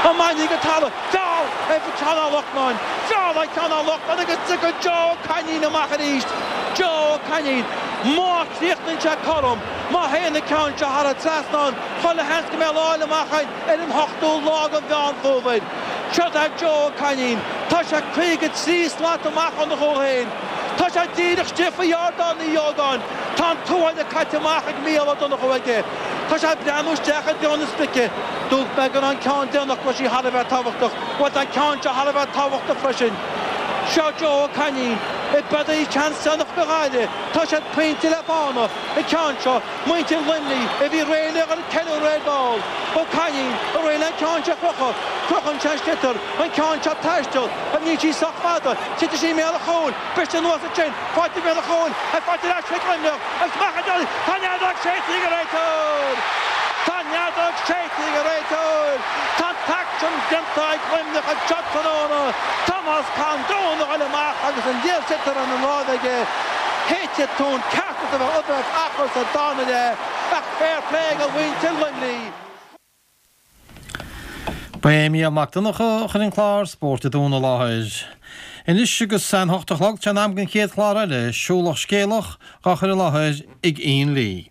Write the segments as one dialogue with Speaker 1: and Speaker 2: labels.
Speaker 1: Iománaí go talamh. Feall ar Sheán Ó Lachtnáin. Feall ar Sheán Ó Lachtnáin agus tiocfaidh Joe Ó Cainín amach arís. Joe Ó Cainín. Má chríochnaíonn sé cothrom, má théann an ceann seo thar an trasnán, chuile sheans go mbeidh lá eile amach againn ar an ochtú lá de Mheán Fómhair. Seo é Joe Ó Cainín. Tá sé 53 slat amach óna chúl féin. Tá sé díreach istigh faoi Ardán Uí Ógáin. Tá an tuáille caite amach ag Mícheál Ó Donnchú aige. Tá sé ag breathnú isteach i dtreo na sprice. Dúirt mé go raibh an ceann déanach go raibh sí thar a bheith tábhachtach. Bhuel tá an ceann seo thar a bheith tábhachtach freisin. Seo Joe Ó Cainín. B'fhéidir seans déanach do Ghaillimh. Tá siad pointe le fána. An ceann seo, muintir Luimnigh a bhí réidh le dhul ag ceiliúradh ar ball. Ó Cainín réidh le an ceann seo a chrochadh. Crochann sé an sliotar. An ceann seo ag taisteal. Ach níl sí sách fada. Titfidh sí i mbéal an chúil. Briste anuas ansin. Faighte i mbéal an chúil. Faighte ar ais chuig Luimneach. Agus amach an deireadh. Tá an fheadóg séidte ag an réiteoir! Tá an fheadóg séidte ag an réiteoir! Tá an t-aicsean déanta ag Luimneach anseo tráthnóna. Tomás Condon a ghoil amach agus an liathsliotar ina láimh aige. Shéid tonn ceart as a bheith achar sa darna leath ach fair play do mhuintir Luimnigh.
Speaker 2: Ba é Mícheál Mac Donncha a chuir an clár Spórt an Domhain i láthair. Anois agus an hocht a chlog, tá sé in am don chéad chlár eile, Siúlach Scéalach, dhá chur i láthair ag Ian Lee.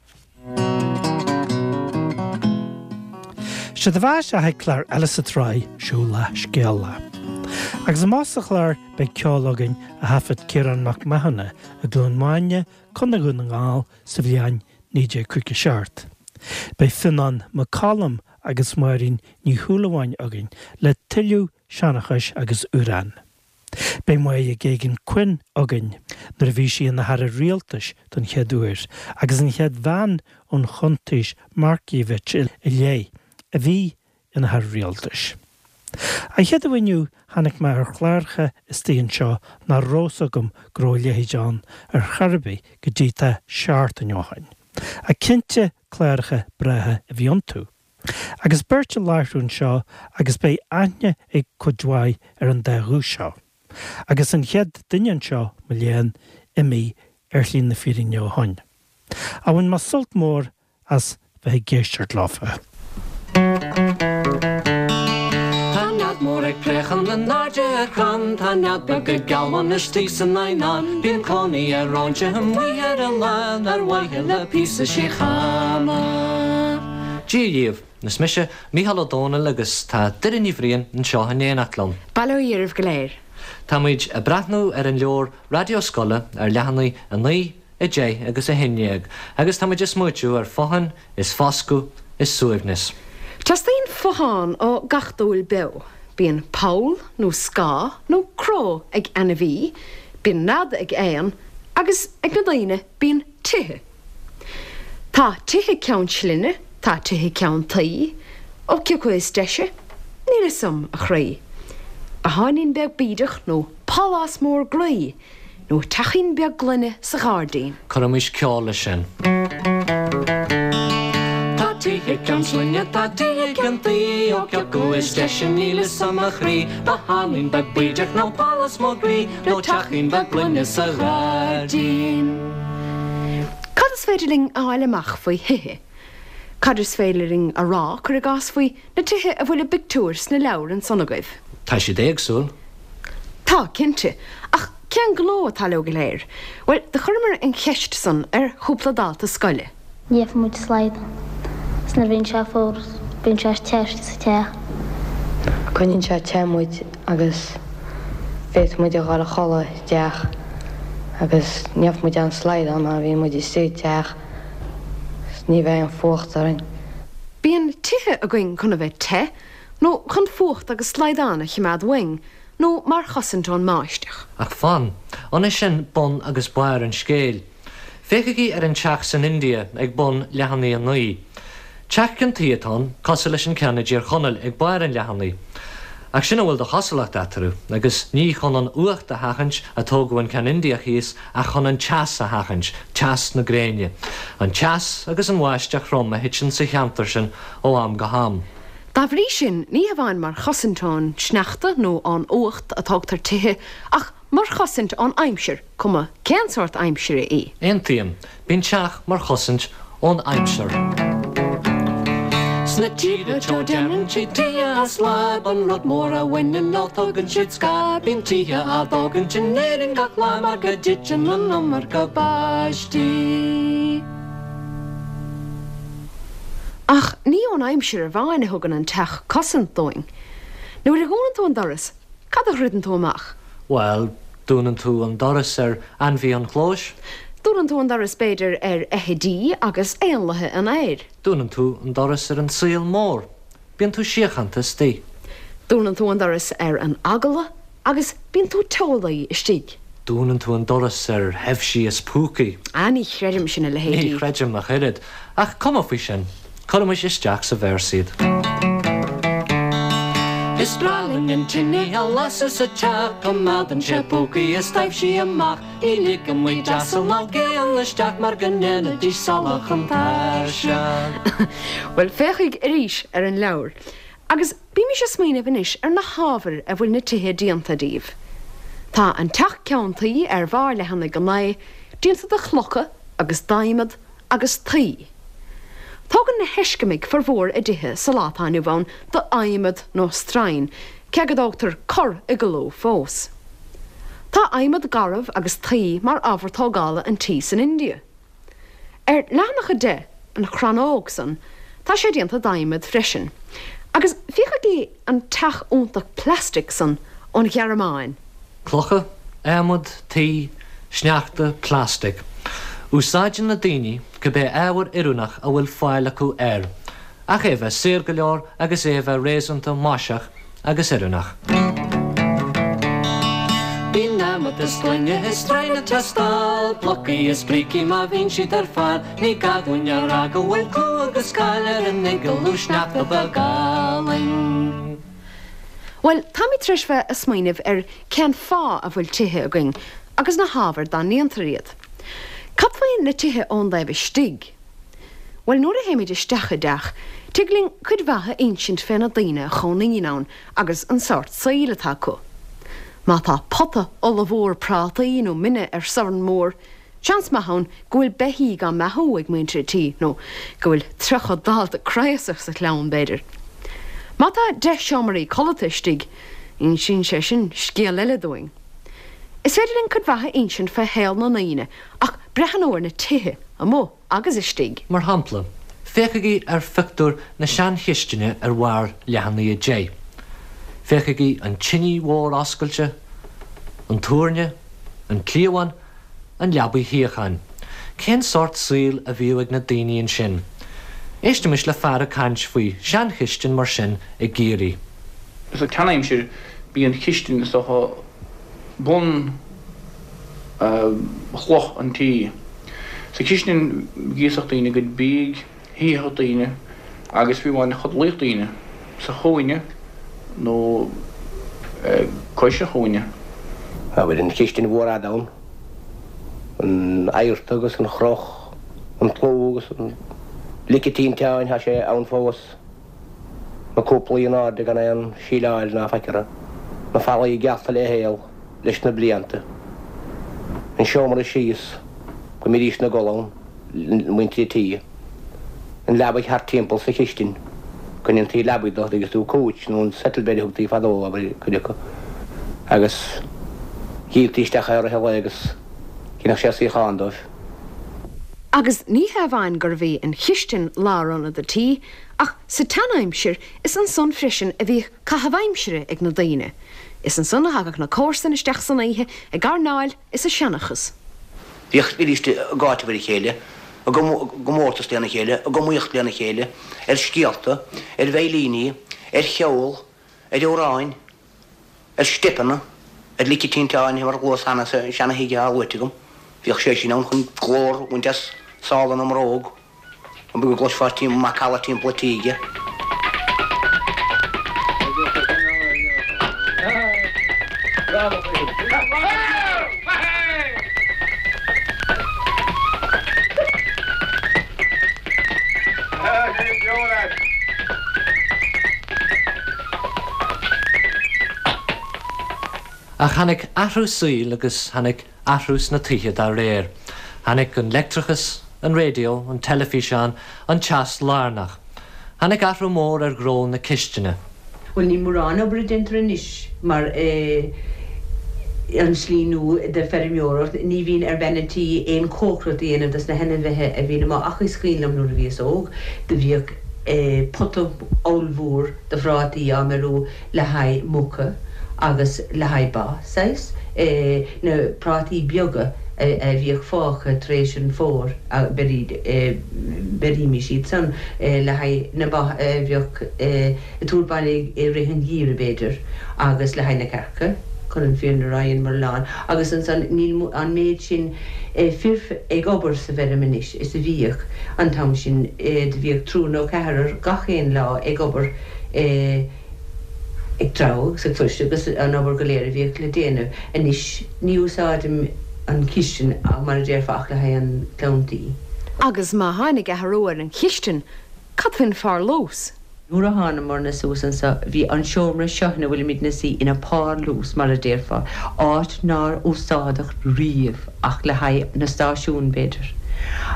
Speaker 3: Séard a bheas sa chéad chlár eile sa tsraith Siúlach Scéalach. Agus amach sa chlár beidh ceol againn a thaifead Ciarán Mac Mathúna i gCluain Mhaine, Contae Dhún na nGall sa bhliain 1957. Beidh Fionnán Mac Coluim agus Máirín Ní Shúilleabháin againn le tuilleadh seanchais agus amhrán. Beidh Máire Geoghegan Quinn againn nuair a bhí sí ina hAire Rialtais don chéad uair agus an chéad bhean ón Chuntaois Markievicz i leith a bhí ina hAire Rialtais. An Chéadaoin inniu tháinig mé ar chláracha istigh anseo nach raibh 's agam go raibh a leithéid ann ar chor ar bith go dtí tá seachtain ó shoin. Ach cinnte cláracha breátha a bhí iontu. Agus beirt á láithriú anseo agus beidh aithne ag cuid mhaith ar an dá ghuth seo. Agus an chéad duine anseo, mo léan, imithe ar shlí na fírinne ó shoin. Ach bhain mé sult mór as bheith ag éisteacht leofa.
Speaker 4: Tá nead mór ag préachán in airde ar chrann, Tá nead beag ag gealbhan istigh san eidhneán, Bíonn cónaí ar óinseach amuigh ar oileán Ar mhaithe le píosa síochána.
Speaker 5: Dia dhaoibh, is mise Mícheál Ó Domhnaill agus tá Doireann Ní Bhriain anseo in éineacht liom.
Speaker 6: Bail ó Dhia oraibh go léir.
Speaker 5: Táimid ag breathnú ar an leabhar Raidió Scoile ar leathanaigh 9, 10 agus 11 agus táimid ag smaoitiú ar fothain is foscadh is suaimhneas.
Speaker 6: Teastaíonn fothán ó gach dúil beo. Bíonn poll nó scáth nó cró ag ainmhí, bíonn nead ag éan agus ag na daoine bíonn tithe. Tá tithe ceann slinne, tá tithe ceann tuí, ó cé acu is deise? Níl 'fhios a'm, a chroí. Botháinín beag bídeach nó pálás mór groí. Nó teachín beag gloine sa ghairdín.
Speaker 5: Cuirimis ceol leis sin.
Speaker 4: Tá tithe ceann slinne, tá tithe ceann tuí, ó cé acu is deise níl 'fhios a'm a chroí, Botháinín beag bídeach nó pálás mór groí, nó teachín beag gloine sa ghairdín.
Speaker 6: Cad is féidir linn a fháil amach faoi thithe? Cad is féidir linn a rá, cuir i gcás, faoi na tithe a bhfuil a bpictiúir sna leabhair ansan agaibh?
Speaker 5: Tá siad éagsúil.
Speaker 6: Tá, cinnte. Ach cén gnó atá leo go léir? Bhuel, do chuireamar an cheist san ar chúpla dalta scoile.
Speaker 7: Ní fhaigheann muid slaghdán. Is nuair a bhíonn sé fuar bíonn sé te istigh sa teach.
Speaker 8: Coinníonn sé te muid agus féadfaidh muid a dhul a chodladh i dteach agus ní fhaigheann muid aon slaghdán mar bhíonn muid istigh i dteach is ní bheidh aon fuacht orainn.
Speaker 6: Bíonn tithe againn chun a bheith te, nó chun fuacht agus slaghdán a chimeád uainn, nó mar chosaint ón mbáisteach.
Speaker 5: Ach fan, an é sin bun agus barr an scéil? Féachaigí ar an teach san India ag bun leathanaigh 9. Teach ceann tuí atá ann, cosúil leis an ceann i dTír Chonaill ag barr an leathanaigh. Ach sin a bhfuil de chosúlacht eatarthu, agus ní chun an fhuacht a sheachaint a tógadh an ceann Indiach thíos ach chun an teas a sheachaint, teas na gréine. An teas agus an bháisteach throm a thiteann sa cheantar sin ó am go ham.
Speaker 6: Dá bhrí sin, ní hamháin mar chosaint ón sneachta nó ón fhuacht a tógtar tithe, ach mar chosaint ón aimsir, cuma cén sórt aimsire í.
Speaker 5: Aontaím. Bíonn teach mar chosaint ón aimsir.
Speaker 4: Sna tíortha teo déanann siad tithe as láib, an rud mór a bhaineann leo tugann siad scáth. Bíonn tithe á dtógaint in Éirinn gach lá mar go dtiteann an iomarca báistí.
Speaker 6: Ach ní ón aimsir amháin a thugann an teach cosaint dúinn. Nuair a dhúnann tú an doras, cad a dhruideann tú amach?
Speaker 5: Bhuel, dúnann tú an doras ar ainmhithe an chlóis.
Speaker 6: Dúnann tú an doras, b'fhéidir, ar fheithidí agus éanlaithe an aeir.
Speaker 5: Dúnann tú an doras ar an saol mór. Bíonn tú síochánta istigh.
Speaker 6: Dúnann tú an doras ar an eagla agus bíonn tú teolaí istigh.
Speaker 5: Dúnann tú an doras ar thaibhsí is púcaí.
Speaker 6: Ah, ní chreidim sin a leithéidí.
Speaker 5: Ní chreidim ach oiread. Ach cuma faoi sin. Cuirimis isteach sa véarsa iad.
Speaker 4: Is breá linn an tine a lasadh sa teach, coimeádann sé púcaí is taibhsí amach. Ní ligeann muid asal ná géanna isteach mar go ndéanfaidís salach an tairseach.
Speaker 6: Bhuel, féachaig arís ar an leabhar agus bímis ag smaoineamh anois ar na hábhair a bhfuil na tithe déanta díobh. Tá an teach ceann tuí ar bharr leathanaigh 9 déanta de chlocha agus d'adhmad agus tuí. Tógann na hEiscimigh formhór a dtithe sa lá atá inniu ann d'adhmad nó stroighin, cé go dtógtar corr-iglú fós. Tá adhmad garbh agus tuí mar ábhar tógála an tí san India. Ar leathanach 10, an chrannóg san, tá sé déanta d'adhmad freisin. Agus féachaigí an teach iontach plastic san ón Ghearmáin.
Speaker 5: Clocha, adhmad, tuí, sneachta, plastic. Úsáideann na daoine cibé ábhar oiriúnach a bhfuil fáil acu air, ach é a bheith saor go leor agus é a bheith réasúnta maiseach agus oiriúnach.
Speaker 4: Bíonn adhmad is gloine is stroighin ag teastáil, blocaí is brící má bhíonn siad ar fáil, ní gá dúinn a rá go bhfuil clú agus cáil ar an iglú sneachta beag álainn.
Speaker 6: Bhuel, táimid tar éis bheith ag smaoineamh ar cén fáth a bhfuil tithe againn agus na hábhair dá ndéantar iad. Cad faoi na tithe ón dtaobh istigh? Bhuel, nuair a théimid isteach i dteach, tig linn cuid mhaith a insint fé na daoine a chónaíonn ann agus an sórt saoil atá acu. Má tá pota ollmhór prátaí nó mine ar sorn mór, seans maith ann go bhfuil beithígh á mbeathú ag muintir an tí, nó go bhfuil 30 dalta craosach sa chlann, b'fhéidir. Má tá 10 seomraí codlata istigh, insíonn sé sin scéal eile dúinn. Is féidir linn cuid mhaith a insint fé shaol na ndaoine ach breathnú ar na tithe, amuigh agus istigh.
Speaker 5: Mar shampla, féachaigí ar phictiúr na seanchistine ar bharr leathanaigh 10. Féachaigí an tinidh mhór oscailte, an túirne, an cliabhán, an leabaidh shuíocháin. Cén sórt saoil a bhíodh ag na daoine ansin? Éistimis le fear ag caint faoi sheanchistin mar sin i gCiarraí.
Speaker 9: Sa tseanaimsir bhí an chistin is dócha bun chloch an tí. Sa chistin ghríosfadh daoine a gcuid bídh, shuífeadh daoine agus fiú amháin chodlaíodh daoine sa chúinne nó cois an chúinne.
Speaker 10: Abair an chistin mhór fhada ann, an adharta agus an chroch, an tlú agus an lice tinteáin, tá sé ann fós, na cúplaí in airde gan aon síleáil ná faic orthu, na fallaí geallta le haol leis na blianta, an seomra síos go mbídís ina gcodladh ann. muintir an tí, an leabaidh thart timpeall sa chistin, go ndéantaí leabaidh de, agus tú couch nó an settle bed a thugtaí fadó, abair, cuid acu, agus dhíoltaí isteach é i rith an lae agus dheineadh sé suíochán dóibh.
Speaker 6: Agus ní hé amháin gurbh í an chistin lárionad an tí, ach sa tseanaimsir is ansan freisin a bhíodh caitheamh aimsire ag na daoine. Is ansan a thagadh na comharsain isteach san oíche ag airneáil is ag seanchas.
Speaker 10: Bhíodh arís ag áiteamh ar a chéile, i gcomórtas lena chéile, ag iomaíocht lena chéile, ar scéalta, ar veidhlíní, ar cheol, ar amhráin, ar steipeanna, ar lice tinteáin, mar a luas cheana sa seana-thigh atá luaite agam. Bhíodh sé sin ann chun glór a bhaint as sála na mbróg. An go gcloisfeá macalla timpeall an tíghe.
Speaker 5: Ach tháinig athrú saoil agus tháinig athrú sna tithe dá réir. Tháinig an leictreachas, an raidió, an teilifíseán, an teas lárnach. Tháinig athrú mór ar ghnó na cistine.
Speaker 11: Bhuel, níl mórán obair a déantar anois mar an slí nua de feirmeoireacht, ní bhíonn ar bhean an tí aon cócaireacht a dhéanamh dos na hainmhithe a bhíonn amuigh ach is cuimhin liom nuair a bhíos óg, do bhíodh pota ollmhór de phrátaí á mbeiriú le haghaidh muca agus le haghaidh ba, saghas, na prátaí beaga a bhíodh fágtha tar éis an fómhair, bheirímis iad san le haghaidh na ba a bheadh ag tabhairt baile i rith an gheimhridh, b'fhéidir, agus le haghaidh na cearca, chun an fírinne a rá, dheineamar a lán. Agus ansan, níl an méid sin fir ag obair sa bhfeirm anois is a bhíodh an t-am sin. Do bhíodh triúr nó ceathrar gach aon lá ag obair, ag treabhadh agus ag fuirseadh agus an obair go léir a bhíodh le déanamh. Anois, ní úsáidim an chistin, mar a déarfá, ach le haghaidh an clann tí.
Speaker 6: Agus má tháinig athrú ar an chistin, cad faoin pharlús?
Speaker 11: Nuair a thánamairne suas anso bhí an seomra seo ina bhfuilimid 'na suí ina párlús, mar a déarfá, áit nár úsáideadh riamh ach le haghaidh na stáisiún, b'fhéidir.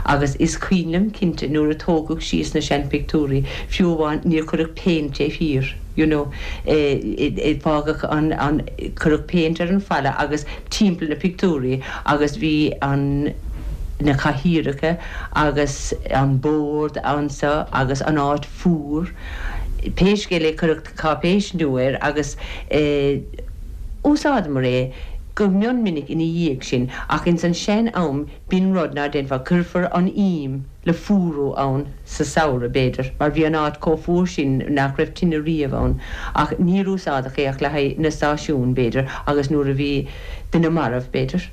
Speaker 11: Agus is cuimhin liom cinnte nuair a tógadh síos na seanphictiúirí, fiú amháin níor cuireadh péint taobh thiar, you know, fágadh an, an, cuireadh péint ar an falla agus timpeall na pictiúirí agus bhí an, na cathaoireacha agus an bord anso agus an áit fuar. Pé scéal é cuireadh cáipéis nua air agus úsáideamar é go mion minic ina dhiaidh sin ach ins an sean am b'in rud ná déanfá, cuirfear an ím le fuarú ann sa samhradh b'fhéidir mar bhí an áit chomh fuar sin nach raibh tine riamh ann ach níor úsáideadh é ach le haghaidh na stáisiún b'fhéidir agus nuair a bhí duine marbh b'fhéidir.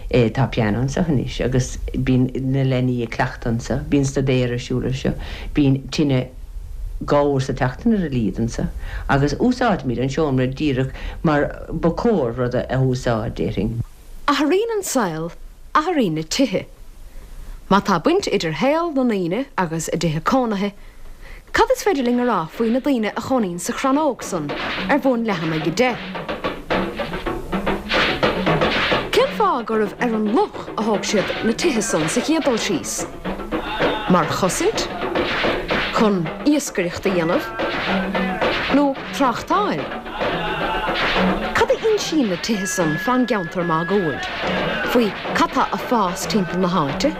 Speaker 11: Tá pianó anseo anois agus bíonn na leanaí ag cleachtadh anseo, bíonn staidéar ar siúl anseo, bíonn tine dhá uair sa tseachtain ar a laghad anseo agus úsáidimid an seomra díreach mar ba chóir rud a úsáid, déarfainn.
Speaker 6: Athraíonn an saol, athraíonn na tithe. Má tá baint idir shaol na ndaoine agus a dtithe cónaithe, Cad is féidir linn a rá faoi na daoine a chónaíonn sa chrannóg san ar bhun leathanaigh 10? Cén fáth gurbh ar an loch a thóg siad na tithe san sa chéad dul síos? Mar chosaint? Chun iascaireacht a dhéanamh? Nó tráchtáil? Cad a insíonn na tithe san fán gceantar máguaird? Faoi cad tá a fás timpeall na háite?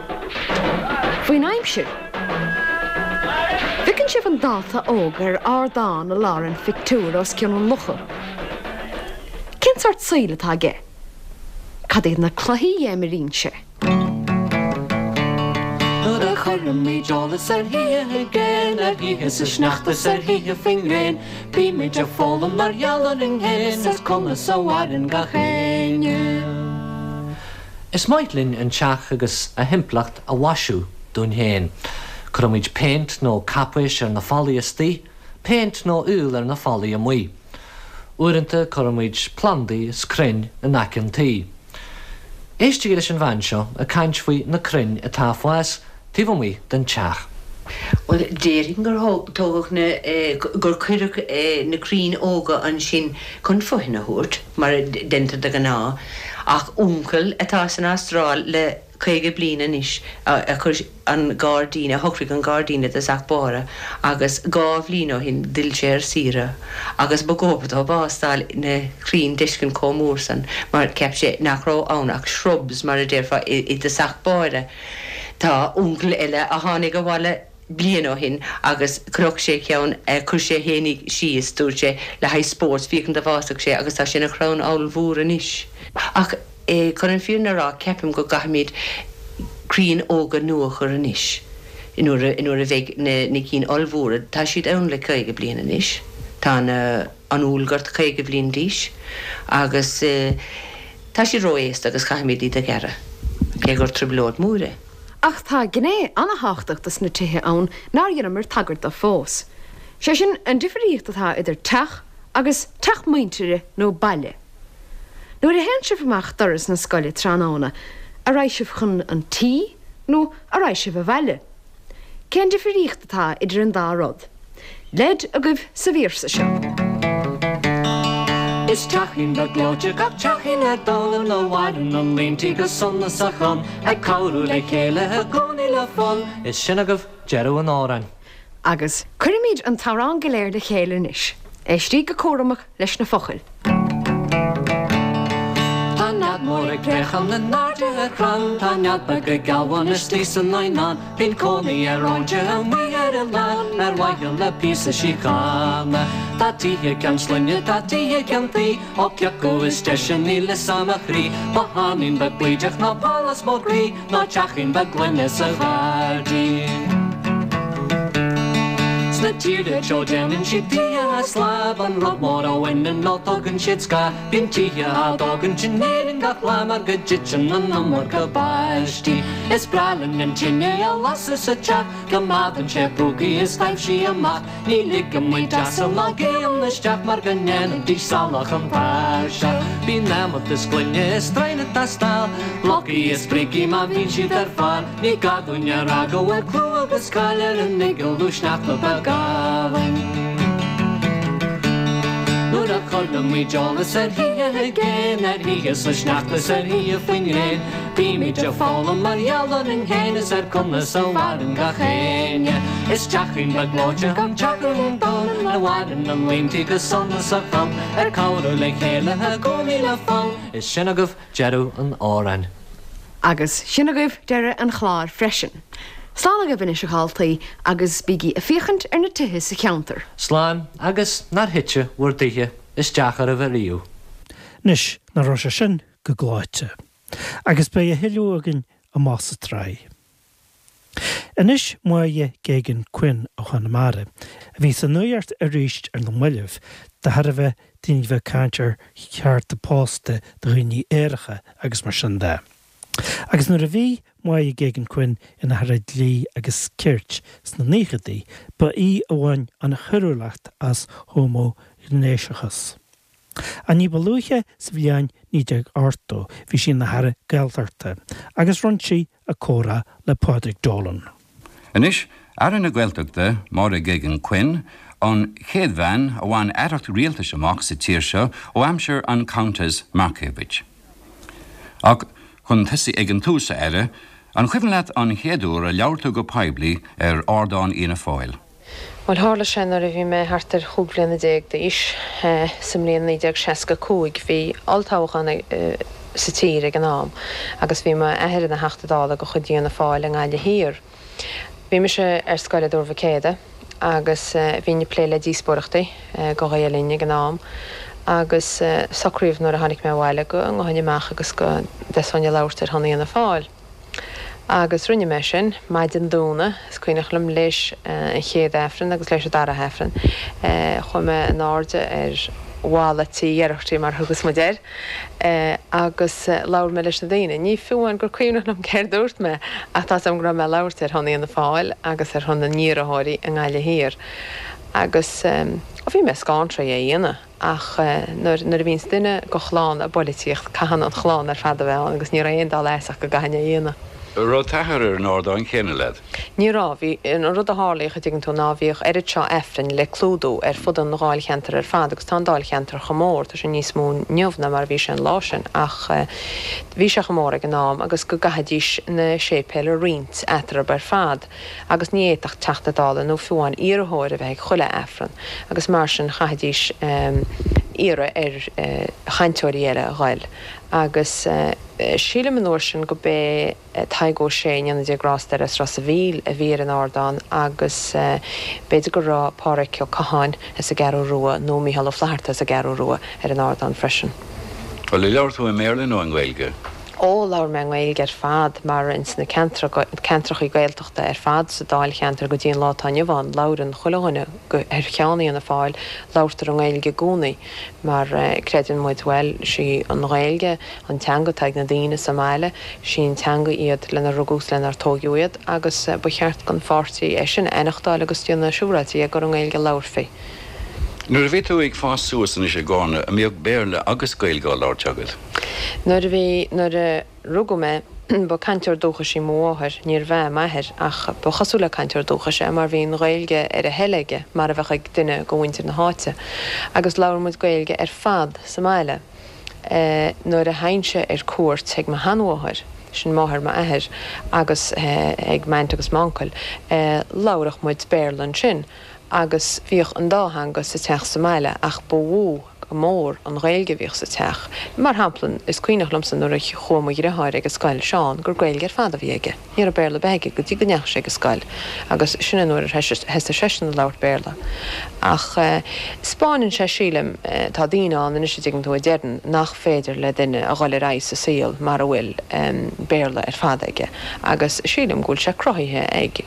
Speaker 6: Faoin aimsir? Bhfeiceann sibh an dalta óg ar ardán i lár an phictiúir os cionn an locha? Cén sórt saoil atá aige? Cad iad na cluichí a imríonn sé?
Speaker 4: Nuair a chuirimid eolas ar thithe i gcéin, ar thithe sa sneachta 's ar thithe faoin ngréin, bímid ag foghlaim mar gheall orainn féin is conas a mhaireann gach éinne.
Speaker 5: Is maith linn an teach agus a thimpeallacht a mhaisiú dúinn féin. Cuirimid péint nó caipéis ar na fallaí istigh, péint nó aoil ar na fallaí amuigh. Uaireanta cuirimid plandaí is crainn in aice an tí. Éistigí leis an bhean seo ag caint faoi na crainn atá ag fás taobh amuigh den teach.
Speaker 11: Bhuel, déarfainn gur tógadh na, gur cuireadh na crainn óga ansin chun fothain a thabhairt, mar a deintear de ghnáth, ach uncail atá san Astráil le 50 bliain anois a chuir an gairdín, a shocraigh an gairdín i dtosach báire agus dhá bhliain ó shin d'fhill sé ar saoire agus ba dhóbair dó bás d'fháil na crainn d'fheiscint chomh mór san mar cheap sé nach raibh ann ach shrubs mar a déarfá i dtosach báire. Tá uncail eile a tháinig abhaile bliain ó shin agus chroch sé ceann, chuir sé fhéinig síos, dúirt sé, le haghaidh spóirt, féachaint an bhfásfadh sé agus tá sé ina chrann ollmhór anois. Ach chun an fírinne a rá, ceapaim go gcaithfimid crainn óga nua a chur anois nuair a nuair a bheidh na na cinn ollmhóra, tá siad ann le 50 bliain anois, tá na an úllghort 50 bliain d'aois agus tá siad ró-aosta agus caithfimid iad a ghearradh, cé gur trioblóid mhór é.
Speaker 6: Ach tá gné ana-thábhachtach dos na tithe ann nár dheineamar tagairt do fós. Sé sin, an difríocht atá idir teach agus teach muintire nó baile. Nuair a théann sibh amach doras na scoile tráthnóna, a raghaidh sibh chun an tí nó a raghaidh sibh abhaile? Cén difríocht atá idir an dá rud? Leid agaibh sa véarsa seo.
Speaker 4: Is teachín beag gleoite gach teachín ar domhan ina mhaireann an líon tí go sonasach ann, ag cabhrú le chéile i gcónaí le fonn.
Speaker 5: Is sin agaibh deireadh an amhráin.
Speaker 6: Agus cuirfimid an t-amhrán go léir le chéile anois. Éistigí go cúramach leis na focail.
Speaker 4: Tá nead mór ag préachán in airde ar chrann, Tá nead beag ag gealbhan istigh san eidhneán, Bíonn cónaí ar óinse amuigh ar oileán Ar mhaithe le píosa síochána. Tá tithe ceann slinne, tá tithe ceann tuí, Ó ciocu is deise níl fhios a'm a chroí, Botháinín beag baoideach ná pálás mór groí, Ná teachín beag gloine sa ghairdín. Sna tíortha teo déanann siad tithe as láib, An rud mór a bhaineann leo tugann siad scáth. Bíonn tithe á dtógaint in Éirinn gach lá Mar go dtiteann an iomarca báistí. Is breá linn an tine a lasadh sa teach, Coimeádann sé púcaí is taibhsí amach. Ní ligeann muid asal ná géanna isteach mar go ndéanfaidís salach an tairseach. Bíonn adhmad is gloine is stroighin ag teastáil, blocaí is brící má bhíonn siad ar fáil. Ní gá dúinn a rá go bhfuil clú agus cáil ar an mhiogal nó sneachta beag álainn. Nuair a chuireann muid eolas ar thithe i gcéin, ar thithe sa sneachta is ar thithe faoin ngréin, Bímid ag foghlaim mar gheall orainn féin is ar conas a mhaireann gach éinne. Is teachín beag gleoite an teach ar an domhan ina mhaireann an líon tí go sona sa chlann, ag cabhrú le chéile i gcónaí le fonn. Is sin agaibh deireadh an amhráin.
Speaker 6: Agus sin agaibh deireadh an chláir freisin. Slán agaibh anois a dhaltaí agus bígí ag féachaint ar na tithe sa cheantar.
Speaker 5: Slán agus nár thite bhur dtithe isteach oraibh ariamh.
Speaker 3: Anois, nach raibh sé sin go gleoite. Agus beidh a thuilleadh againn amach sa tsraith. Anois Máire Geoghegan Quinn ó Chonamara, a bhí sa nuacht arís ar na mallaibh de thairbhe daoine a bheith ag caint ar chearta pósta do dhaoine aeracha agus mar sin de. Agus nuair a bhí Máire Geoghegan Quinn ina hAire Dlí agus Cirt sna naochadaí, ba í a bhain an choiriúlacht as homaighnéasachas. Ach ní ba luaithe sa bhliain 1980 bhí sí ina hAire Gaeltachta agus rinne sí a comhrá le Pádraig Dolan.
Speaker 12: Anois, Aire na Gaeltachta, Máire Geoghegan Quinn, an chéad bhean a bhain aireacht rialtais amach sa tír seo ó aimsir an Countess Markievicz. Ach chun tosaí ag an tús, a Aire, an cuimhin leat an chéad uair a labhair tú go poiblí ar ardán Fhianna Fáil?
Speaker 13: Bhuel, tharla sé nuair a bhí mé thart ar chúig bhliana déag d'aois, sa mbliain 1965. Bhí olltoghchán sa tír ag an am agus bhí m'athair ina Theachta Dála de chuid Fhianna Fáil i nGaillimh Thiar. Bhí mise ar scoil i dTuar Mhic Éadaigh agus bhínn ag plé le díospóireachtaí do Ghael Linn ag an am agus socraíodh nuair a tháinig mé abhaile go ngabhfainn amach agus go dtosóinn ag labhairt ar shon Fhianna Fáil. Agus rinne mé sin, maidin Domhnaigh, is cuimhneach liom, léis an chéad Aifreann agus léis an dara hAifreann. Chuaigh mé in airde ar bhalla tí Gherarty, mar a thugas muid air, agus labhair mé leis na daoine. Ní fiú amháin gur cuimhneach liom céard a dúirt mé, ach tá's agam go raibh mé ag labhairt ar shon Fhianna Fáil agus ar shon na n-iarrthóirí i nGaillimh Thiar. Agus, ó, bhí mé scánraithe é a dhéanamh. Ach nuair a bhíonns duine de chlann i bpoilitíocht, caitheann an chlann ar fad a bheith ann agus ní raibh aon dul as ach go gcaithfinn é a dhéanamh.
Speaker 12: An raibh t'athair ar an ardán céanna leat?
Speaker 13: Ní raibh. Bhí, an rud a tharlaíodh, a dtuigeann tú, ná bhíodh oiread seo Aifrinn le clúdú ar fud an dháilcheantair ar fad agus tá an dáilcheantar chomh mór, tá sé níos mó inniu ná mar a bhí sé an lá sin ach bhí sé chomh mór ag an am agus go gcaithfidís na séipéil a roinnt eatarthu ar fad. agus ní fhéadfadh Teachta Dála nó fiú amháin iarrthóir a bheith ag chuile Aifreann agus mar sin chaithfidís iarraidh ar chainteoirí eile a ghoil agus sílim an uair sin go b'é Tadhg Ó Sé, go ndéana Dia grásta air, as Ros a' Mhíl a bhí ar an ardán agus b'fhéidir go raibh Pádhraic Ó Catháin as an gCeathrú Rua nó Mícheál Ó Flaithearta as an gCeathrú Rua ar an ardán freisin.
Speaker 12: Bhuel, ar labhair tú i mBéarla nó i nGaeilge?
Speaker 13: Ó, labhair mé i nGaeilge ar fad mar ins na ceantrachaí Gaeltachta ar fad sa Dáilcheantar go dtí an lá atá inniu ann, labhrann chuile dhuine ar cheann Fhianna Fáil, labhartar i nGaeilge i gcónaí mar creideann muid, bhuel, sí an Ghaeilge an teanga atá ag na daoine sa mbaile, sí an teanga iad lenar rugadh is lenar tóigeadh iad agus ba cheart don pháirtí é sin a aithneachtáil agus déanamh siúráilte dhe gur i nGaeilge a labharfaí.
Speaker 12: Nuair a bhí tú ag fás suas anois i gCarna, an mbíodh Béarla agus Gaeilge á labhairt agat?
Speaker 13: Nuair a bhí, nuair a rugadh mé, ba cainteoir dúchais í mo mháthair, níorbh ea m'athair, ach ba chosúil le cainteoir dúchais é mar bhí an Ghaeilge ar a thoil aige, mar a bheadh ag duine de mhuintir na háite. Agus labhair muid Gaeilge ar fad sa mbaile. Nuair a theinnse ar cuairt ag mo sheanmháthair. sin máthair m'athair, agus ag m'aint agus m'uncail, labhradh muid Béarla ansin agus bhíodh an dá theanga sa teach sa mbaile ach ba mhó go mór an Ghaeilge a bhíodh sa teach. Mar shampla, is cuimhneach liomsa nuair a chuaigh mo dhriotháir ag an scoil, Seán, gur Gaeilge ar fad a bhí aige. Ní raibh Béarla ar bith aige go dtí go ndeachaigh sé ag an scoil agus sin an uair a thosaigh seisean ag labhairt Béarla. Ach 'spáineann sé, sílim, tá daoine ann anois a dtuigeann tú a deireann nach féidir le duine a dhul ar aghaidh sa saol mara bhfuil Béarla ar fad aige agus sílim go bhfuil sé cruthaithe ag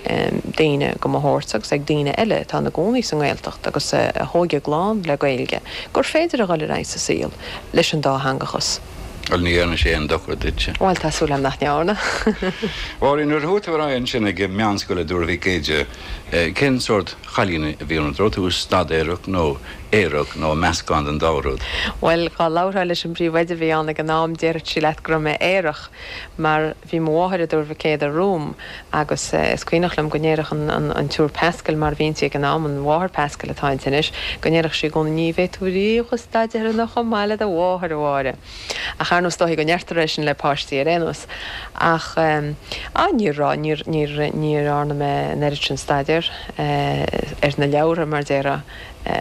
Speaker 13: daoine de mo shórt agus ag daoine eile atá ina gcónaí sa nGaeltacht agus a thóig a gclann le Gaeilge gur féidir a dhul ar aghaidh sa saol leis an dátheangachas.
Speaker 12: Bhuel, ní dhearna sé aon dochar duitse.
Speaker 13: Bhuel, tá súil agam nach ndearna.
Speaker 12: Mháirín, nuair a chuaigh tú ar aghaidh ansin ag meánscoil i dTuar Mhic Éide, cén sórt chailín a bhí ionat? Raibh tú staidéarach nó aerach nó meascán den dá rud?
Speaker 13: Bhuel, dhá labharfá leis an bpríomhoide a bhí ann ag an am, déarfadh sí leat go raibh mé aerach, mar bhí mo mháthair i dTuar Mhic Éadaigh romham agus is cuimhneach liom go ndéarfadh an tSiúr Pascal, mar a bhí inti ag an am, an Mháthair Pascal atá inti anois, go ndéarfadh sí i gcónaí, ní bheidh tú riamh chomh staidéartha ná chomh maith le do mháthair, a Mháire. Ach ar ndóigh is dóichí go ndeirtear é sin le páistí ar aon nós. Ach á, ní raibh, níor, níor, ní dhearna mé an oiread sin staidéir ar na leabhartha, mar déarfá,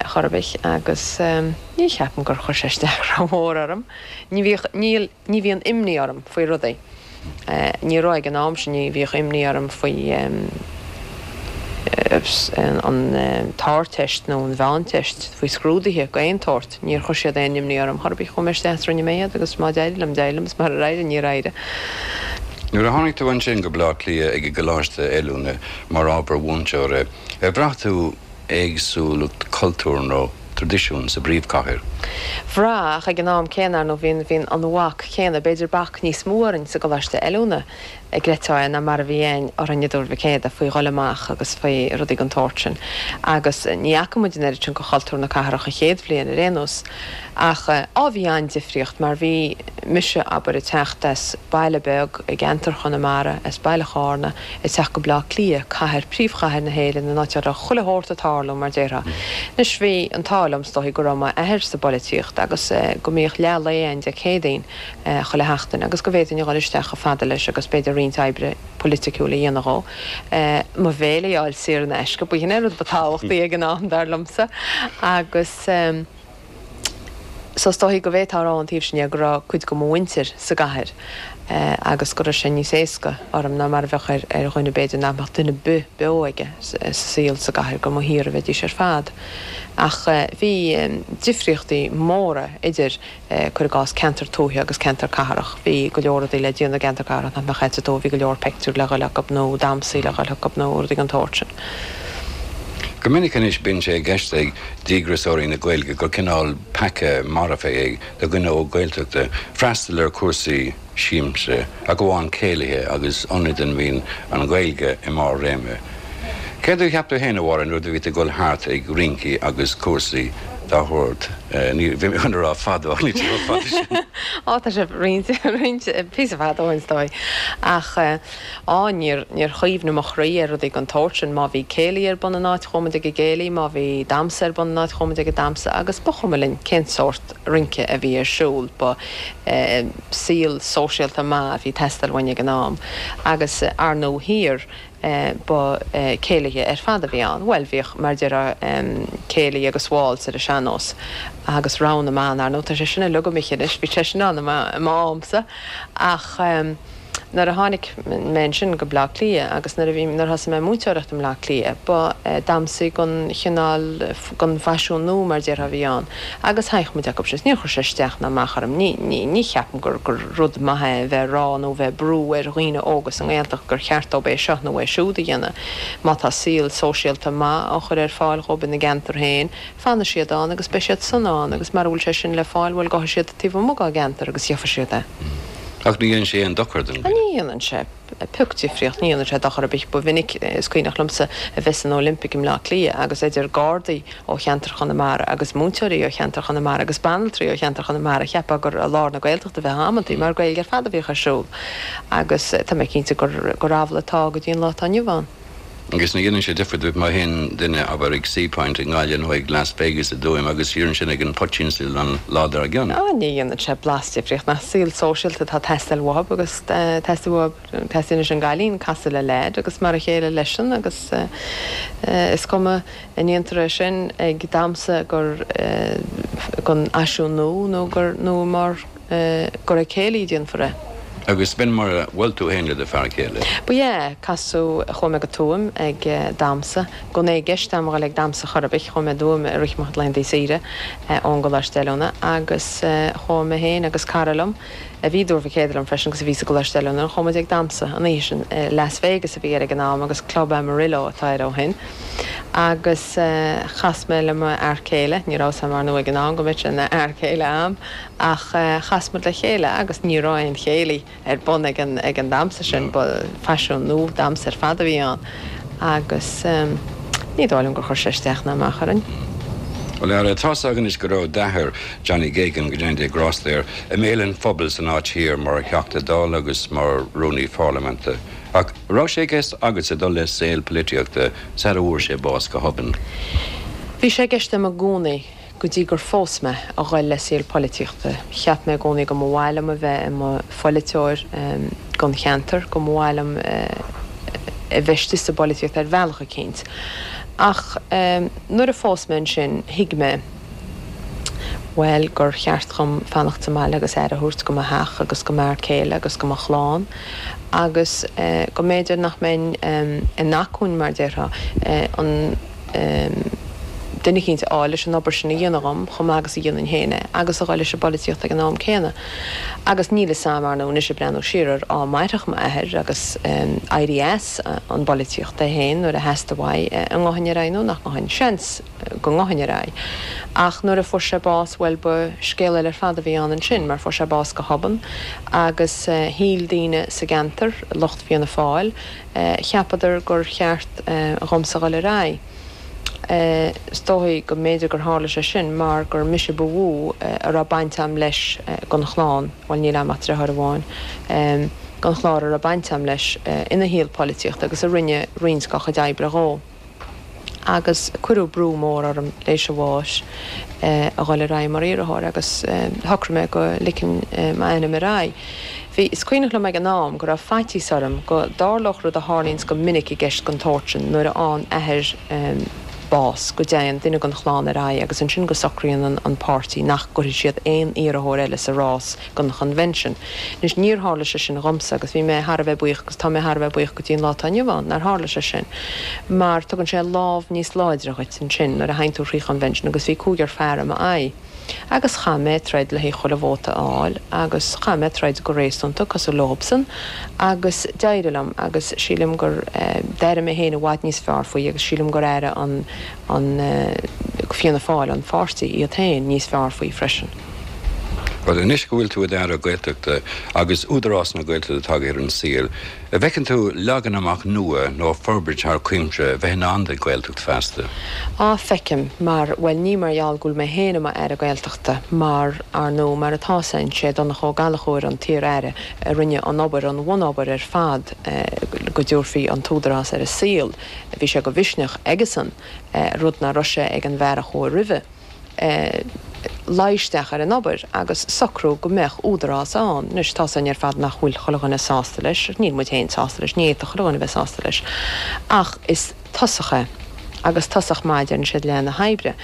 Speaker 13: chor ar bith agus ní cheapaim gur chuir sé isteach rómhór orm. Ní bhíodh, níl. Ní bhíonn imní orm faoi rudaí. Ní raibh ag an am sin, ní bhíodh imní orm faoi an tArdteist nó an Mheánteist, faoi scrúduithe d'aon tsórt. Níor chuir siad aon imní orm chor ar bith. Chuaigh mé isteach is rinne mé iad agus má d'éirigh liom, d'éirigh liom is murar éirigh, níor éirigh.
Speaker 12: Nuair a tháinig tú ansin go Baile Átha Cliath ag an gColáiste Oiliúna mar ábhar mhúinteora, ar bhraith tú éagsúlacht cultúr nó traidisiún sa bpríomhchathair.
Speaker 13: Bhraith, ach ag an am céanna, ar ndóigh, bhí bhí an bhac chéanna, b'fhéidir bac níos mó orainn sa gColáiste Oiliúna, a gcreidfeá é, ná mar a bhí ann orainn i dTuar Mhic Éadaigh faoi dhul amach agus faoi rudaí den tsórt sin. Agus ní fhaca muid an oiread sin de chultúr na cathrach an chéad bhliain ar aon nós. Ach, á, bhí an-difríocht mar bhí mise, abair, ag teacht as baile beag i gceantar Chonamara, as baile Chárna, ag teacht go Bleá Cliath, cathair, príomhchathair na hÉireann, an áit a raibh chuile shórt ag tarlú, mar déarfá. Anois, bhí an t-ádh liom, is dóichí, go raibh m'athair sa bpolaitíocht agus go mbíodh leath lae ann Dé Céadaoin chuile sheachtain agus go bhféadfainn a dhul isteach chomh fada leis agus b'fhéidir roinnt oibre polaiticiúil a dhéanamh dhó. Mo bhéile a fháil saor in aisce, b'shin é an rud ba tábhachtaí ag an am, dar liomsa. Agus. So is dóichí go bhféadfá a rá ón taobh sin dhe go raibh cuid de mo mhuintir sa gcathair agus go raibh sé níos éasca orm ná mar a bheadh ar ar dhuine b'fhéidir nach mbeadh duine ar bith beo aige sa saol sa gcathair gur amuigh thiar a bheidís ar fad. Ach bhí difríochtaí móra idir, cuir i gcás, ceantar tuaithe agus ceantar cathrach. Bhí go leor rudaí le déanamh i gceantar cathrach nach mbeadh sa tuath, bhí go leor peictiúr le dhul acu nó damhsaí le dhul acu nó rudaí den tsórt sin.
Speaker 12: Go minic anois bíonn sé i gceist ag díograiseoirí na Gaeilge gur cineál peaca marfach é do dhuine óg Gaeltachta freastal ar chúrsaí siamsa, ach amháin céilithe agus ionaid ina mbíonn an Ghaeilge i mbarr réime. Céard a cheap tú féin, a Mháire, nuair a bhí tú ag dul thart ag rincí agus cúrsaí dá shórt? Ní, bhí mé chun a rá fadó ach níl sé chomh fada
Speaker 13: sin. Á, tá sé roinnt, roinnt, píosa fada ó shin is dóigh. Ach. Á, níor, níor chuimhnigh mo chroí ar rudaí den tsórt sin. Má bhí céilí ar bun in áit, chuaigh muid ag an gcéilí, má bhí damhsa ar bun in áit, chuaigh muid ag an damhsa agus ba chuma linn cén sórt rince a bhí ar siúl. Ba saol sóisialta maith a bhí ag teastáil uainn ag an am. Agus, ar ndóigh thiar, ba céilithe ar fad a bhí ann. Bhuel, bhíodh, mar a déarfá, céilí agus waltz ar an sean-nós agus rogha na mban, ar ndóigh, tá sé sin uilig imithe anois, bhí sé sin ann i m'amsa ach. Nuair a tháinig mé ansin go Bleá Cliath agus nuair a bhí, nuair a thosaigh mé ag múinteoireacht i mBleá Cliath, ba damhsaí den chineál, den bhfaisiún nua mar déarfá a bhí ann agus thagadh muid acu sin. Níor chuir sé isteach ná amach orm. Ní, ní, ní cheapaim gur, gur rud maith é a bheith ag rá nó a bheith ag brú ar dhaoine óga sa nGaeltacht gur cheart dóibh é seo nó é siúd a dhéanamh. Má tá saol sóisialta maith á chur ar fáil dhóibh ina gceantar féin, Fanfaidh siad ann agus beidh siad sona ann agus mara bhfuil sé sin le fáil, bhuel, gabhfaidh siad taobh amuigh dá gceantar agus gheobhaidh siad é.
Speaker 12: Ach ní dhéanann sé aon dochar don
Speaker 13: dhuine. Ní dhéanann sé pioc difríocht, ní dhéanann sé dochar ar bith. Ba mhinic, is cuimhneach liomsa, a bheith san Olympic i mBleá Cliath agus idir Gardaí ó cheantar Chonamara agus múinteoirí ó cheantar Chonamara agus banaltraí ó cheantar Chonamara, cheapfá gur i lár na Gaeltachta a bheifeá amantaí mar Gaeilge ar fad a bhíodh ar siúl. Agus tá mé cinnte gur amhlaidh atá go dtí an lá atá inniu ann.
Speaker 12: Agus ní dhéanann sé difear duit má théann duine, abair, ag Seapoint i nGaillimh nó ag Las Vegas i dTuaim agus siar ansin ag an Poitín Stil an lá dár
Speaker 13: gcionn. Á, ní dhéanann sé blas difríocht. Nach saol sóisialta atá ag teastáil uathub agus teastaíonn uathub, teastaíonn leis an gcailín casadh le leaid agus mar a chéile leisean agus is cuma an ndéantar é sin ag damhsa gur gon fhaisiún nua nó gur nó mar gur ag céilí a déanfar é.
Speaker 12: Agus b'in mar a bhuail tú féin le do fear céile?
Speaker 13: Ba ea, casadh, chuaigh mé go Tuaim ag damhsa, gan é i gceist a'm a dhul ag damhsa chor ar bith, chuaigh mé i dTuaim i rith mo chuid laethanta saoire ón gColáiste Oiliúna agus chuaigh mé féin agus cara liom, a bhí i dTuar Mhic Éadaigh liom freisin agus a bhí sa gColáiste Oiliúna, chuaigh muid ag damhsa an oíche sin, Las Vegas a bhí air ag an am agus Club Amarillo atá air ó shin. Agus chas mé le mo fhear céile, ní raibh 'fhios a'm ar ndóigh ag an am go mbeadh sé ina fhear céile a'm, Ach chas muid le chéile agus ní raibh aon chéilí ar bun ag an ag an damhsa sin, ba faisiún nua damhsa ar fad a bhí ann agus ní dóigh liom gur chuir sé isteach ná amach orainn.
Speaker 12: Bhuel, a Aire, tá's againn anois go raibh d'athair, Johnny Geoghegan, go ndéana Dia grásta air, i mbéal an phobail san áit thiar mar Theachta Dála agus mar Rúnaí Pharlaiminte. Ach raibh sé i gceist agatsa dul le saol polaitíochta sara bhfuair sé bás go hobann?
Speaker 13: Bhí sé i gceist agam i gcónaí Go dtí gur phós mé, a ghoil le saol poilitíochta. Cheap mé i gcónaí go mba mhaith liom a bheith i mo pholaiteoir don cheantar, go mba mhaith liom a bheith istigh sa bpolaitíocht ar bhealach eicínt. Ach nuair a phós mé ansin, thuig mé, bhuel, gur cheart dhom fanacht sa mbaile agus aire a thabhairt go mo theach agus go m'fhear céile agus go mo chlann agus go mb'fhéidir nach mbeinn in acmhainn, mar déarfá, an. duine eicínt a fháil leis an obair sin a dhéanamh dhom, chomh maith agus a dhéanfainn féin é, agus a dhul leis an bpolaitíocht ag an am céanna. Agus níl fhios a'm, ar ndóigh, anois ag breathnú siar air, á mairfeadh m'athair agus éirí as an bpolaitíocht é féin nuair a theastaigh uaidh, an ngabhfainn ar aghaidh nó nach ngabhfainn. Seans go ngabhfainn ar aghaidh. Ach nuair a fuair sé bás, bhuel, ba scéal eile ar fad a bhí ann ansin, mar fuair sé bás go hobann agus shíl daoine sa gceantar, lucht Fianna Fáil, Cheapadar gur cheart dhomsa dhul ar aghaidh. Is dóigh go mb'fhéidir gur tharla sé sin mar gur mise ba mhó a raibh baint a'm leis gon chlann, bhuel níl a'm ach driotháir amháin, gon chlár a raibh baint a'm leis ina shaol polaitíochta agus a rinne roinnt dá chuid oibre dhó. agus cuireadh brú mór orm léis a bháis a dhul ar aghaidh mar iarrthóir agus shocraigh mé go ligfinn m'ainm ar aghaidh. Bhí, is cuimhneach liom ag an am go raibh faitíos orm go dtarlódh rud a tharlaíonns go minic i gceist den tsórt sin nuair a fhaigheann athair bás, go dtéann duine den chlann ar aghaidh agus ansin go socraíonn an páirtí nach gcuirfidh siad aon iarrthóir eile sa rás don chonvention. Anois, níor tharla sé sin dhomsa agus bhí mé thar a bheith buíoch agus tá mé thar a bheith buíoch go dtí an lá atá inniu ann nár tharla sé sin mar tugann sé lámh níos láidre dhuit ansin nuair a théann tú thrí chonvention agus bhí cúigear fear i m'aghaidh agus chaith mé troid le haghaidh chuile vóta a fháil agus chaith mé troid go réasúnta cosúil leobsan agus d'éirigh liom agus sílim gur d'airigh mé féin i bhfad níos fearr faoi agus sílim gur airigh an an Fianna Fáil, an pháirtí, iad féin níos fearr faoi freisin.
Speaker 12: Bhuel, anois go bhfuil tú i d'Aire Gaeltachta agus Údarás na Gaeltachta tagtha ar an saol, an bhfeiceann tú leagan amach nua nó forbairt thar cuimse a bheith i ndán don Ghaeltacht feasta?
Speaker 13: Á, feicim, mar, bhuel, ní mar gheall go bhfuil mé féin i m'Aire Gaeltachta, mar, ar ndóigh, mar atá 's a'inn, sé Donncha Ó Gallchóir an t-iar-aire a rinne an obair, an bhunobair ar fad go dtabharfaí an tÚdarás ar an saol. Bhí sé de mhisneach aigesan, rud nach raibh sé ag an bhfear a chuaigh roimhe. luí isteach ar an obair agus socrú go mbeadh údarás ann. Anois, tá's againn ar fad nach bhfuil chuile dhuine sásta leis, níl muid féin sásta leis, ní fhéadfadh chuile dhuine a bheith sásta leis, ach is tosach é, agus tosach maith, deireann siad, leath na hoibre.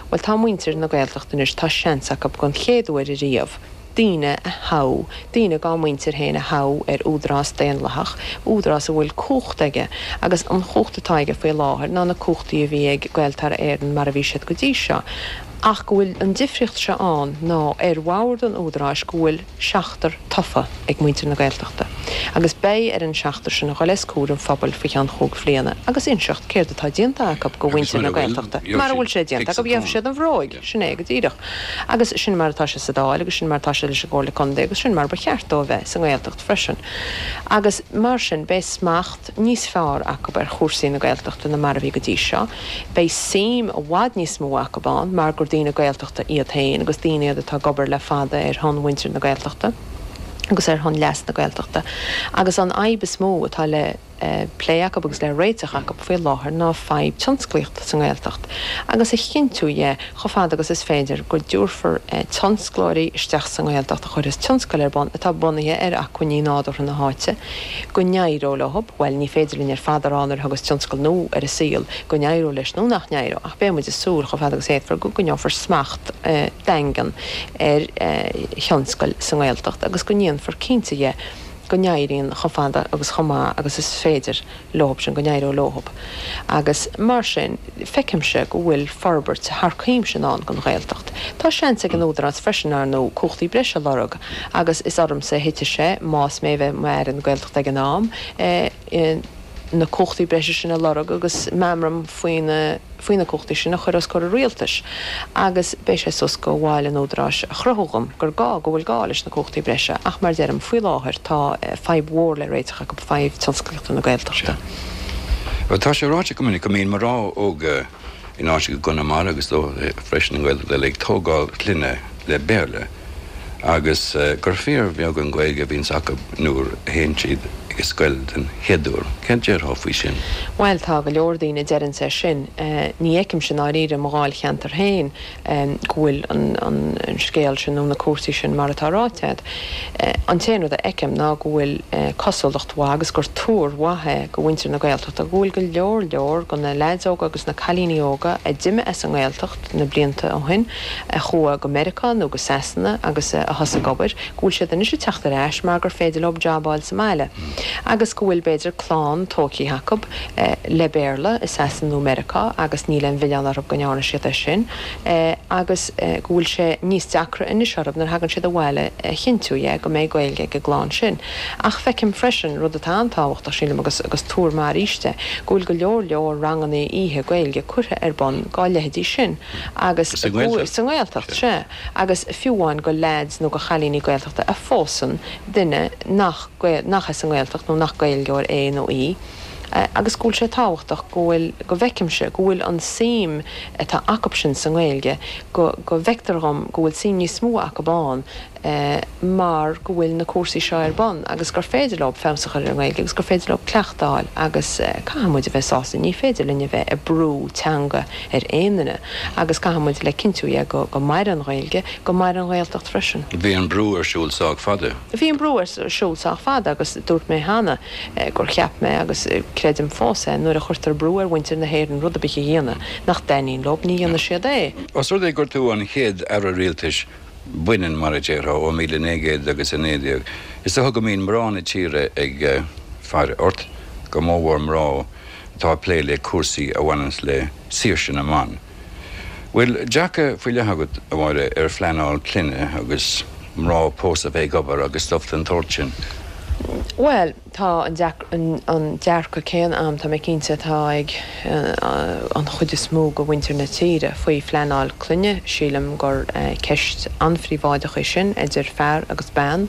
Speaker 13: Bhuel, tá muintir na Gaeltachta anois, tá seans acu don chéad uair ariamh, daoine a thoghadh, daoine dá muintir féin a thoghadh ar údarás daonlathach, údarás a bhfuil cumhacht aige, agus an chumhacht atá aige faoi láthair ná na cumhachtaí a bhí ag Gaeltarra Éireann mar a bhí siad go dtí seo. Ach go bhfuil an difríocht seo ann ná ar bhord an údaráis go bhfuil seachtar tofa ag muintir na Gaeltachta agus beidh ar an seachtar sin a dhul os comhair an phobail faoi cheann chúig bhliana agus inseacht céard atá déanta acu go mhuintir na Gaeltachta. Mara bhfuil sé déanta acu, gheobhaidh siad an bhróig. Sin é go díreach. Agus sin mar atá sé sa Dáil agus sin mar atá sé leis an gComhairle Contae agus sin mar ba cheart dó a bheith sa nGaeltacht freisin. Agus mar sin beidh smacht níos fearr acu ar chúrsaí na Gaeltachta ná mar a bhí go dtí seo. Beidh suim i bhfad níos mó acu ann mar gur daoine Gaeltachta iad féin agus daoine iad atá ag obair le fada ar shon mhuintir na Gaeltachta agus ar shon leas na Gaeltachta. Agus an fhadhb is mó atá le. plé acu agus le réiteach acu faoi láthair ná fadhb tionsclaíochta sa nGaeltacht agus a chinntiú dhe chomh fada agus is féidir go dtabharfar tionsclóirí isteach sa nGaeltacht a chuirfeas tionscail ar bun atá bunaithe ar acmhainní nádúrtha na háite, go n-éireodh leo, bhuel, ní féidir linn ar fad a rá nuair a thiocfas tionscal nua ar an saol go n-éireoidh leis nó nach n-éireoidh ach beidh muid ag súil chomh fada agus a fhéadfar go gcoinneofar smacht daingean ar thionscail sa nGaeltacht agus go ndéanfar cinnte dhe go n-éiríonn chomh fada agus chomh maith agus is féidir leob sin, go n-éireoidh leob. Agus mar sin, feicimse go bhfuil forbairt thar cuimse i ndán don Ghaeltacht. Tá seans ag an Údarás freisin, ar ndóigh, cumhachtaí breise a lorg agus is ormsa a thitfidh sé, más mé a bheidh i m'Aire na Gaeltachta ag an am, na cumhachtaí breise sin a lorg agus meamram faoina faoi na cumhachtaí sin a chur os comhair an Rialtais agus beidh sé suas go bhaill an Údaráis a chruthú dhom gur gá, go bhfuil gá leis na cumhachtaí breise ach mar deirim, faoi láthair tá fadhb mhór le réiteach acu, fadhb tionsclaíochta na Gaeltachta.
Speaker 12: Sea. Tá sé ráite go minic go mbíonn mná óga in áiteacha i gConamara agus freisin i nGaeltacht eile ag tógáil clainne le Béarla. agus gur fíorbheag an Ghaeilge a bhíonns acu nuair a théann siad ag an scoil den chéad uair. Céard déarfá faoi sin?
Speaker 13: Bhuel, tá go leor daoine a deireanns é sin. Ní fheicimse i ndáiríre i mo dháilcheantar féin go bhfuil an scéal sin nó na cúrsaí sin mar atá ráite agat. An t-aon rud a fheicim ná go bhfuil cosúlacht mhaith agus gur tuar mhaith é go mhuintir na Gaeltachta go bhfuil go leor leor go na leaids óga agus na cailíní óga a d'imigh as an nGaeltacht, na blianta ó shin, a chuaigh go Meiriceá nó go Sasana agus a thosaigh ag obair, go bhfuil siad anois ag teacht ar ais mar gur féidir leo jab a fháil sa mbaile agus go bhfuil, b'fhéidir, clann tógtha acu le Béarla i Sasana nó Meiriceá agus níl aon mhilleán orthu go ndearna siad é sin agus go bhfuil sé níos deacra anois orthu nuair a thagann siad abhaile a chinntiú dhe go mbeidh Gaeilge ag an gclann sin. Ach feicim freisin, rud atá an-tábhachtach, sílim, agus agus tuar maith arís é, go bhfuil go leor leor ranganna oíche Gaeilge curtha ar bun dá leithéidí sin agus
Speaker 12: Sa nGaeltacht?
Speaker 13: Sa nGaeltacht, sea. Agus fiú amháin go leaids nó go chailíní Gaeltachta a phósann duine nach nach as an nGaeltacht nó nach Gaeilgeoir é nó í agus go bhfuil sé tábhachtach go bhfuil, go bhfeicimse go bhfuil an suim atá acu sin sa nGaeilge, go go bhfeictear dhom go bhfuil suim níos mó acu ann mar go bhfuil na cúrsaí seo ar bun agus gur féidir leo feabhas a chur ar an nGaeilge agus gur féidir leo cleachtadh a fháil agus caithfidh muid a bheith sásta, ní féidir linn a bheith ag brú teanga ar aon duine agus caithfidh muid le cinntiú dhe go go maire an Ghaeilge, go maire an Ghaeltacht freisin.
Speaker 12: Bhí an brú ar siúl sách fada.
Speaker 13: Bhí an brú ar siúl sách fada agus dúirt mé cheana gur cheap mé agus creidim fós é, nuair a chuirtear brú ar mhuintir na hÉireann rud ar bith a dhéanamh nach dtaitníonn leo, ní dhéanfaidh siad é.
Speaker 12: Os rud é gur tú an chéad Aire Rialtais baineann, mar a déarfá, ó 1900 agus 19, is dócha go mbíonn mná na tíre ag faire ort, go mórmhór mná atá ag plé le cúrsaí a bhaineanns le saoirse na mban. Bhfuil dearcadh faoi leith agat, a Mháire, ar phleanáil clainne agus mná pósta a bheith ag obair agus stuif den tsórt sin?
Speaker 13: Bhuel. Tá an dearcadh céanna a'm, tá mé cinnte, atá ag an chuid is mó de mhuintir na tíre faoi phleanáil clainne. Sílim gur ceist an-phríobháideach í sin idir fear agus bean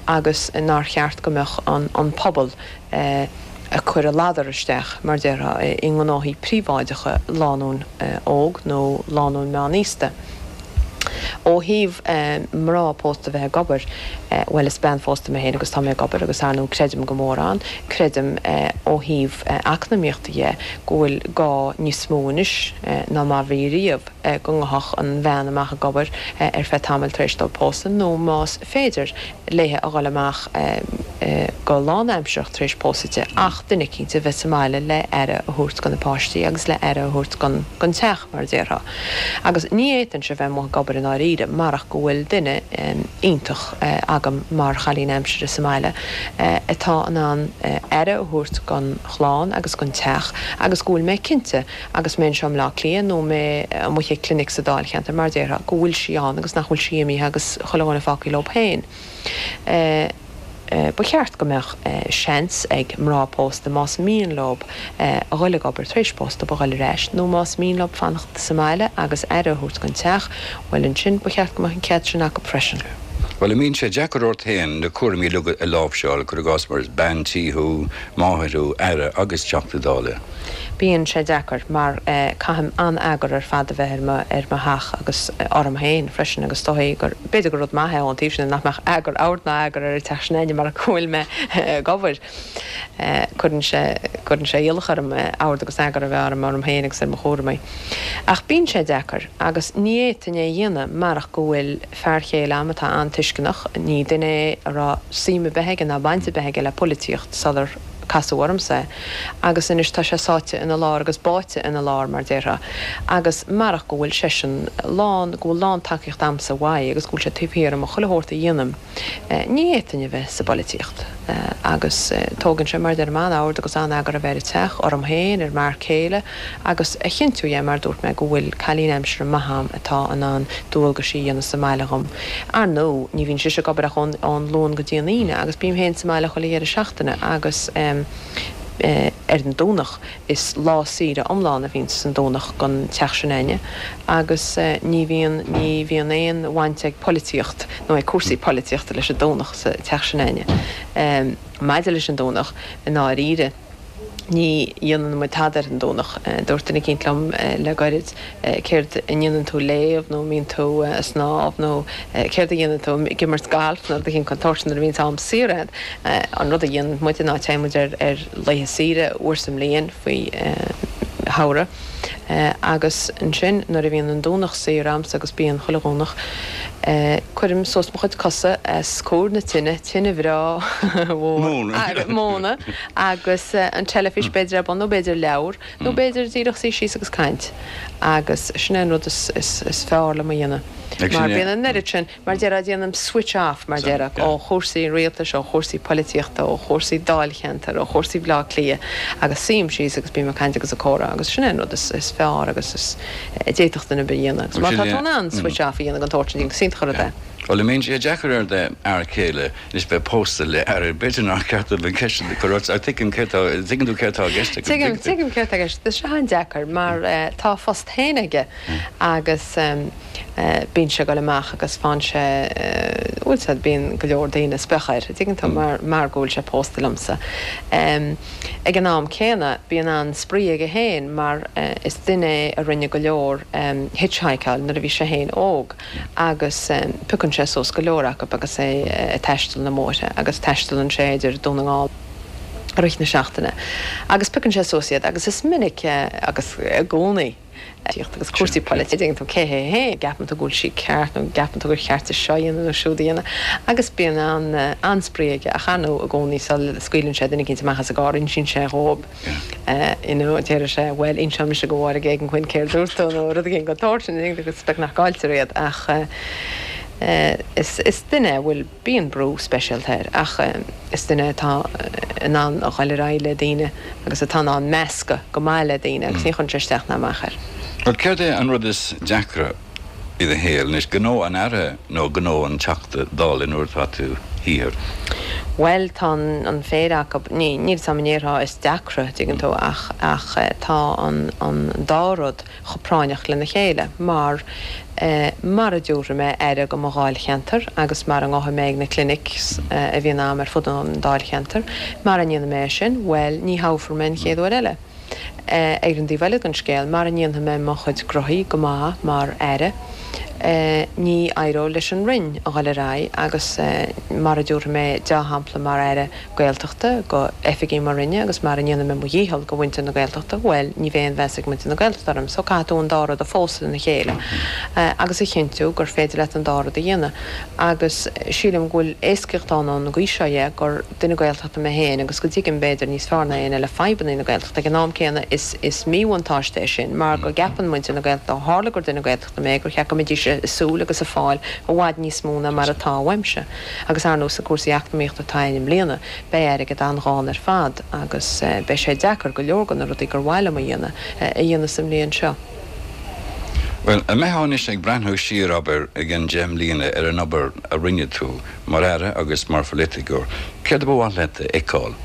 Speaker 13: agus nár cheart go mbeadh an pobal ag cur a ladar isteach, mar déarfá, i ngnóthaí príobháideacha lánúin óg nó lánúin meánaosta. Ó thaobh mná pósta bheith ag obair, bhuel is bean phósta mé féin agus tá mé ag obair agus ar ndóigh creidim go mór ann. Creidim ó thaobh eacnamaíochta dhe go bhfuil gá níos mó anois ná mar bhí riamh go ngabhfadh an bhean amach ag obair ar feadh tamaill tar éis dóibh pósadh nó más féidir léithe a dhul amach go lánaimsearach tar éis pósadh di ach duine eicínt a bheith sa mbaile le aire a thabhairt do na páistí agus le aire a thabhairt don teach, mar a déarfá. Agus ní fhéadfainnse a bheith amuigh ag obair i ndáiríre marach go bhfuil duine iontach agam mar chailín aimsire sa mbaile atá in ann aire a thabhairt don chlann agus don teach agus go bhfuil mé cinnte Agus mé anseo i mBleá Cliath nó mé amuigh ag clinic sa Dáilcheantar, mar a déarfá, go bhfuil sí ann agus nach bhfuil sí imithe agus chuile dhuine fágtha leo féin. Ba cheart go mbeadh seans ag mná pósta, más mian leo a dhul ag obair tar éis pósta, a dhul ar ais, nó más mian leo fanacht sa mbaile agus aire a thabhairt don teach, bhuel ansin, ba cheart go mbeadh an cead sin acu freisin.
Speaker 12: Bhuel, an mbíonn sé deacair ort féin na cúraimí uilig a láimhseáil, cuir i gcás mar is bean tí thú, máthair thú, aire agus Teachta Dála?
Speaker 13: Bíonn sé deacair mar caithim an-eagar ar fad a bheith ar mo ar mo theach agus orm féin freisin agus is dóigh gur, b'fhéidir gur rud maith é ón taobh sin de nach mbeadh eagar, ord ná eagar ar an teach sin againne mar go bhfuil mé ag obair. Cuireann sé, cuireann sé iallach orm ord agus eagar a bheith orm, orm féin agus ar mo chúramaí. Ach bíonn sé deacair agus ní fhéadfainn é a dhéanamh marach go bhfuil fear chéile a'm atá an-tuisceanach, ní duine é a raibh suim ar bith aige ná baint ar bith aige le polaitíocht sular casadh ormsa é agus anois tá sé sáite ina lár agus báite ina lár mar déarfá agus marach go bhfuil seisean lán, go bhfuil lán tacaíocht a'msa uaidh agus go bhfuil sé taobh thiar dhom i chuile shórt a dhéanaim. Ní fhéadfainn a bheith sa bpolaitíocht agus tógann sé, mar a deirim, an-ord agus an-eagar a bheith ar an teach, orm féin, ar m'fhear céile agus a chinntiú, yeah, mar a dúirt mé, go bhfuil cailín aimsire maith a'm atá in ann dualgaisí a dhéanamh sa mbaile dhom. Ar ndóigh, ní bhíonn sise ag obair ach ón Luan go dtí an Aoine agus bím féin sa mbaile chuile dheireadh seachtaine agus ar an Domhnach. Is lá saoire iomlán a bhíonn san Domhnach don teach sin a'inne agus ní bhíonn, ní bhíonn aon bhaint ag polaitíocht nó ag cúrsaí polaitíochta leis an Domhnach sa teach sin a'inne. Maidir leis an Domhnach, i ndáiríre, ní dhéanann muid tada ar an Domhnach. Dúirt duine eicínt liom le goirid, céard a ndéanann tú léamh nó an mbíonn tú ag snámh nó céard a dhéanann tú ag imirt gailf nó rud eicínt den tsórt sin nuair a bhíonns am saor agat. An rud a dhéanann muid ná téann muid ar ar laethe saoire uair sa mbliain faoi shamhradh agus ansin nuair a bhíonn an Domhnach saor a'msa agus bíonn chuile Dhomhnach cuirim suas mo chuid cosa os comhair na tine, tine bhreá mhór móna agus an teilifís b'fhéidir ar bun nó b'fhéidir leabhar Nó b'fhéidir díreach suí síos agus caint. Agus sin é an rud is fearr liom a dhéanamh. Mar bíonn an oiread sin, mar déarfá, déanaim switch off, mar déarfá, ó chúrsaí an rialtais, ó chúrsaí polaitíochta, ó chúrsaí dáilcheantair, ó chúrsaí Bhaile Átha Cliath agus suím síos agus bím ag caint agus ag comhrá agus sin é an rud is fearr agus is a d'fhéadfadh duine ar bith a dhéanamh. Agus má tá tú in ann switch off a dhéanamh den tsórt sin, is iontach an rud é.
Speaker 12: Bhuel, an mbíonn sé deacair ar d'fhear céile anois bheith pósta le aire? B'fhéidir nár cheart dom an cheist sin a chur ort, ach tuigim céard tá, tuigeann tú céard tá i gceist agam,
Speaker 13: Tuigim, tuigeann tú? Tuigim céard tá i gceist. Tá sé an-deacair mar tá a phost féin aige agus bíonn sé ag dul amach agus faigheann sé, bhfuil 's a'd, bíonn go leor daoine ag spréach air, tuigeann tú, mar, mar go bhfuil sé pósta liomsa. Ag an am céanna, bíonn an-spraoi aige féin mar is duine é a rinne go leor hitchhikáil nuair a bhí sé féin óg. agus piocann sé suas go leor acu agus é ag taisteal na mbóithre agus taistealann sé idir Dún na nGall i rith na seachtaine agus piocann sé suas iad agus is minic agus i gcónaí tíocht agus cúrsaí polaitíochta dtuigeann tú cé hé féin gceapann tú go bhfuil sí ceart nó gceapann tú gur cheart di seo a dhéanamh nó siúd a dhéanamh agus bíonn an-spraoi aige ach ar ndóigh i gcónaí sula scaoileann sé duine eicínt amach as an gcarr insíonn sé dhóibh You know, déarfaidh sé, bhuel, inseoidh mise do Mháire Geoghegan-Quinn céard dúirt tú nó rud éigin den tsórt sin, agus beagnach cailltear iad ach is, is duine a bhfuil, bíonn brú speisialta air ach is duine atá in ann a dhul ar aghaidh le daoine agus atá in ann meascadh go maith le daoine agus ní chuireann sé isteach ná amach air.
Speaker 12: Bhuel, céard é an rud is deacra i do shaol anois, gnó an Aire nó gnó an Teachta Dála nuair atá tú thiar?
Speaker 13: Bhuel, tá an phéire acu, ní, níl 'fhios a'm an ndéarfá is deacra, dtuigeann tú, ach, ach tá an, an dá rud chomh práinneach lena chéile mar eh mara dtiúrfaidh mé aire go mo dháilcheantar agus mara ngabhfaidh mé ag na clinics a bhíonn a'm ar fud an dáilcheantair, mara ndéanfaidh mé é sin, bhuel, ní thoghfar mé an chéad uair eile. Ar an dtaobh eile den scéal, mara ndéanfaidh mé mo chuid gnoithí go maith mar Aire, ní éireoidh leis an Roinn a dhul ar aghaidh agus mara dtiúrfaidh mé deá-shampla mar Aire Gaeltachta go oifigigh mo Roinne agus mara ndéanfaidh mé mo dhícheall go mhuintir na Gaeltachta, bhuel, ní bheidh aon mheas ag muintir na Gaeltachta orm. So caithfidh tú an dá rud a phósadh lena chéile agus a chinntiú gur féidir leat an dá rud a dhéanamh. Agus sílim go bhfuil éascaíocht ann ón gcaoi seo dhe gur. duine Gaeltachta mé féin agus go dtuigim, b'fhéidir, níos fearr ná éinne eile fadhbanna na Gaeltachta. Ag an am céanna, is is míbhuntáiste é sin mar go gceapann muintir na Gaeltachta, ó tharla gur duine Gaeltachta mé, gur cheart go mbeidís ag súil agus ag fáil i bhfad níos mó ná mar atá uaimse. Agus ar ndóigh, sna cúrsaí eacnamaíochta atá ann i mbliana, beidh airgead an-ghann ar fad agus beidh sé deacair go leor de na rudaí gur mhaith liom a dhéanamh, a dhéanamh sa mbliain seo.
Speaker 12: Bhuel, an mbeifeá anois ag breathnú siar, abair, i gcionn 10 mbliana ar an obair a rinne tú Mar Aire agus mar pholaiticeoir, céard a ba mhaith leat a fheiceáil?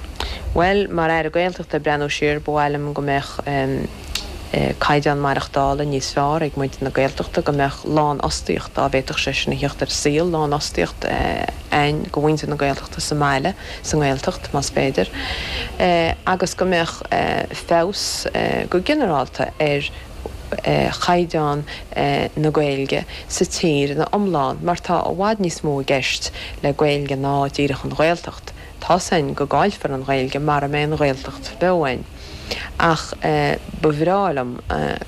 Speaker 13: Bhuel, mar Aire Gaeltachta, ag breathnú siar, ba mhaith liom go mbeadh caighdeán maireachtála níos fearr ag muintir na Gaeltachta, go mbeadh lánfhostaíocht, dá bhféadfadh sé sin a theacht ar an saol, lánfhostaíocht ann go mhuintir na Gaeltachta sa mbaile, sa nGaeltacht, más féidir, agus go mbeadh feabhas go ginearálta ar chaighdeán na Gaeilge sa tír ina iomlán mar tá i bhfad níos mó i gceist le Gaeilge ná díreach an Ghaeltacht. Tá's a'inn go gcaillfear an Ghaeilge mara mbeidh an Ghaeltacht beo a'inn. Ach ba bhreá liom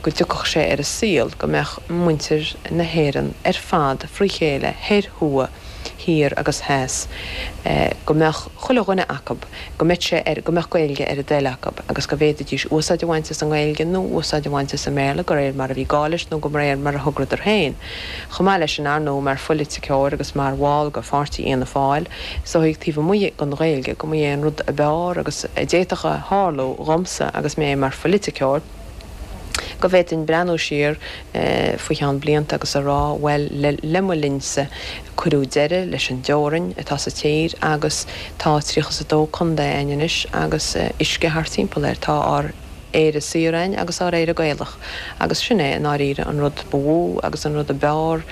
Speaker 13: go dtiocfadh sé ar an saol go mbeadh muintir na hÉireann ar fad frí chéile, thoir, thuaidh, thiar agus theas, go mbeadh chuile dhuine acu, go mbeadh sé ar, go mbeadh Gaeilge ar a dtoil acu agus go bhféadfaidís úsáid a bhaint as an nGaeilge nó úsáid a bhaint as an mBéarla de réir mar a bhí gá leis nó de réir mar a thograíodar féin. Chomh maith leis sin, ar ndóigh, mar phoiliticeoir agus mar bhall de pháirtí Fhianna Fáil, is dóigh taobh amuigh den Ghaeilge go mba é an rud ab fhearr agus a d'fhéadfadh a tharlú dhomsa agus mé mar phoiliticeoir, go bhféadfainn breathnú siar faoi cheann blianta agus a rá, bhuel, le mo linnse, cuireadh deireadh leis an dteorainn atá sa tír agus tá 32 contae a'inn anois agus uisce thart timpeall air. Tá ár Éire saor a'inn agus ár Éire Gaelach agus sin é i ndáiríre an rud ba mhó agus an rud ab fhearr,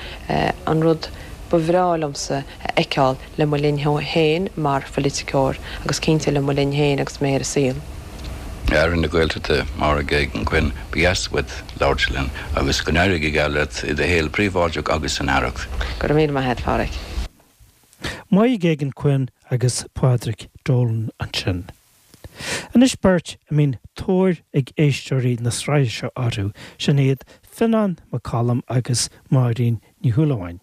Speaker 13: an rud ba bhreá liomsa a fheiceáil le mo linn féin mar phoiliticeoir agus cinnte le mo linn féin agus mé ar an saol.
Speaker 12: Aire na Gaeltachta, Máire Geoghegan-Quinn, ba dheas uait labhairt linn agus go n-éirí go geal leat i do shaol príobháideach agus san Aireacht.
Speaker 13: Go raibh míle maith a't, Phádraic.
Speaker 3: Máire Geoghegan-Quinn agus Pádraic Dolan ansin. Anois beirt a mbíonn tóir ag éisteoirí na sraithe seo orthu, sin iad Fionán Mac Coluim agus Máirín Ní Shúilleabháin.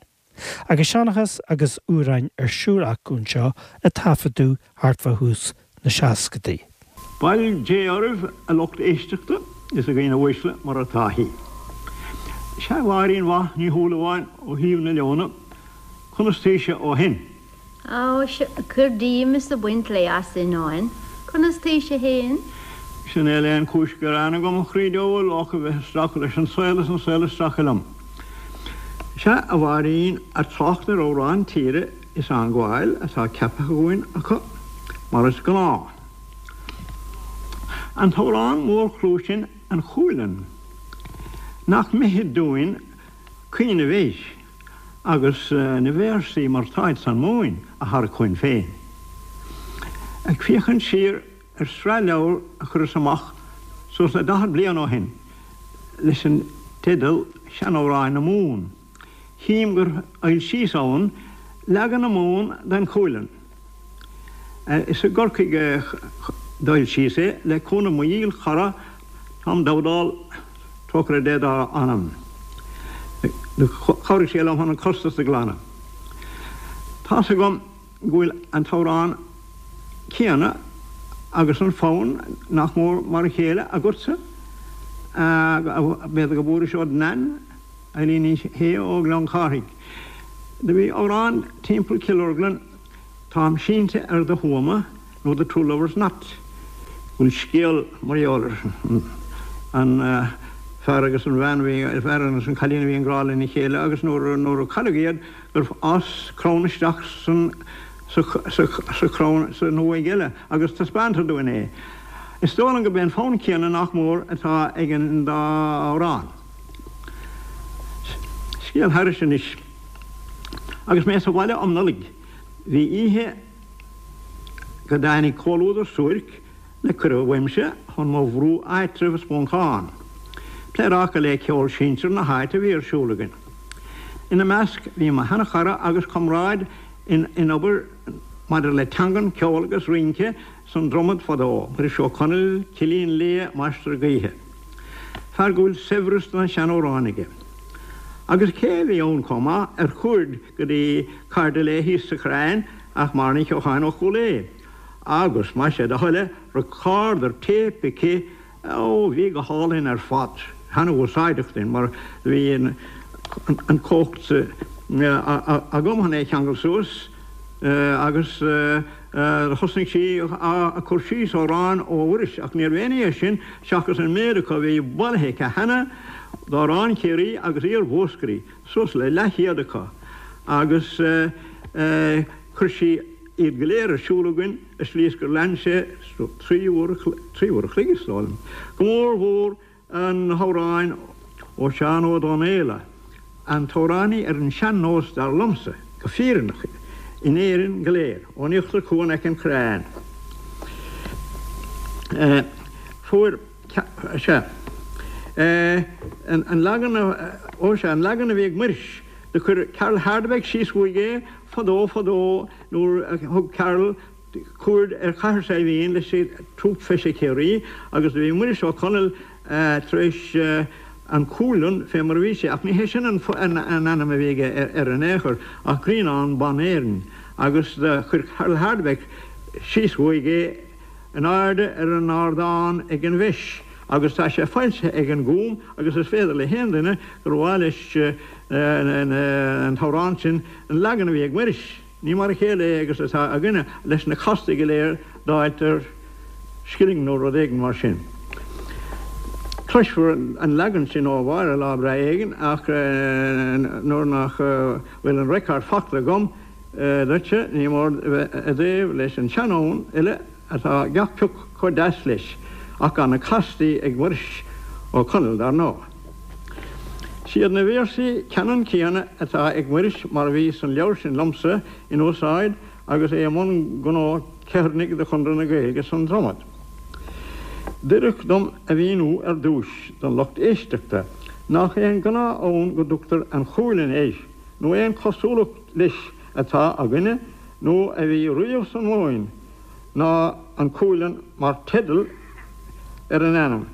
Speaker 3: Agus seanchas agus amhráin ar siúl acu anseo a taifeadadh thart fá thús na seascadaí.
Speaker 14: Bail Dé oraibh a lucht éisteachta is a dhaoine uaisle mar atá thí. Sea a Mháirín mhaith Ní Shúilleabháin ó thaobh na Leona, conas taoise ó shin?
Speaker 15: Ó, sea, cuir díom is ag baint lae as a Fhionnáin. Conas taoise fhéin?
Speaker 14: Sea, níl aon chúis gearáin agam, a chroí diabhail, ach a bheith ag stracadh leis an saol is an saol ag stracadh liom. Sea, a Mháirín, ag trácht ar amhráin tíre is á ngabháil atá ceaptha againn acu, mar is gnáth. An t-amhrán mór-chlú sin, An Chualann. Nach mithid dúinn cuimhneamh air? agus na véarsaí mar táid san Mumhain a tharrac chugainn féin. Ag féachaint siar ar sraith leabhar a chuireas amach suas le 40 bliain ó shin leis an teideal Seanamhráin na Mumhan, chím gur fhoilsíos ann leagan na Mumhan den Chualann. Is i gCorcaigh a d'fhoilsíos é le cúnamh mo dhíl-chara Tom Dowdall, trócaire Dé dá anam. Chabhraigh sé liom chun an costas a ghlanadh. Tá's agam go bhfuil an t-amhrán céanna agus an fonn nach mór mar a chéile agatsa, b'fhéidir go bhfuairis ó d'Nain, Eileen Ní Shé ó Ghleann Cárthaigh. Do bhí amhrán timpeall Cill Orglan, Táim sínte ar do thuama, nó The Two Lovers Knot. Bhfuil scéal mar gheall ar an fear agus an bhean a bhí, an fear agus an cailín a bhí i ngrá lena chéile agus nuair nuair a cailleadh iad gur fhás crann isteach san sa sa sa chrann san uaigh eile agus taispeántar dúinn é. Is dóigh liom gurb é an fonn céanna nach mór atá ag an dá amhrán. Scéal thairis anois. Agus mé sa bhaile um Nollaig bhí oíche go dtáinig comhluadar suairc le cuireadh uaimse chun mo bhrú áitribh i Spuncán. Pléaráca le ceol sinsir na háite a bhí ar siúl againn. Ina measc bhí mo sheanchara agus comrád in obair maidir le teangan, ceol agus rince san Dromad fadó, Muiris Ó Conaill, Cillín Liath, Máistir Gaoithe. Fear go bhfuil saibhreas de na seanamhráin aige. Agus cé a bhí ann chomh maith ar chuaird go dtí cairde léi thíos sa Chrainn ach Máire Ní Cheocháin ó Chúil Aodha. Agus, más é do thoil é, recorder téip aici, ó, bhí go hálainn ar fad, ana-úsáideach duinn mar bhí an chumhacht agam chun é a cheangal suas agus thosnaigh sí ag cur síos amhráin ó Mhuiris ach níorbh aon ní é sin seachas an méid acu a bhí bailithe aici cheana d'amhráin Chiarraí agus iar-Mhúscraí. suas le leathchéad acu agus chuir sí iad go léir ar siúl againn i slí is gur lean sé trí uair a chloig is dóigh liom, go mór mhór na hamhráin ó Sheán Ó Donnghaile, an t-amhránaí ar an sean-nós dar liomsa, go fírinneach, in Éirinn go léir, ón Íochtar Cuan aice an Chrainn. Fuair. Sea. An leagan, ó sea, an leagan a bhí ag Muiris. Do chuir Carl Hardebeck síos uaidh é fadó fadó nuair a thug Carl. Cuaird ar Chathair Saidhbhín leis an Trúp Feise Chiarraí agus do bhí Muiris Ó Conaill tar éis An Cualann fé mar a bhí sé, ach ní hé sin an ainm a bhí aige air in aon chor, ach Grianán Ban Éireann, agus do chuir Carl Hardebeck síos uaidh é in airde ar an ardán ag an bhFeis, agus tá sé foilsithe ag an Gúm agus is féidir le haon duine gur mhaith leis an t-amhrán sin, an leagan a bhí ag Muiris. Ní mar a chéile é agus atá againne, leis na castaí go léir d'fháilt ar scilling nó rud éigin mar sin. Cloisfear an leagan sin ó Mháire lá breá éigin ach nuair nach bhfuil an record fachta agam duitse, ní mór a bheith i dtaobh leis an seanfhonn eile atá gach pioc chomh deas leis, ach gan na castaí ag Muiris Ó Conaill dar ndóigh. Siad na véarsaí ceannann céanna atá ag Muiris mar a bhí san leabhar sin liomsa in úsáid agus é i mbun gnó ceithearnaigh do Chonradh na Gaeilge san Dromad. D'oirfeadh dom a mhíniú ar dtúis don lucht éisteachta nach é an gnáth-fhonn go dtugtar An Chualann air nó aon chosúlacht leis atá againne nó a bhí riamh san Mhumhain ná An Cualann mar teideal ar an ainm,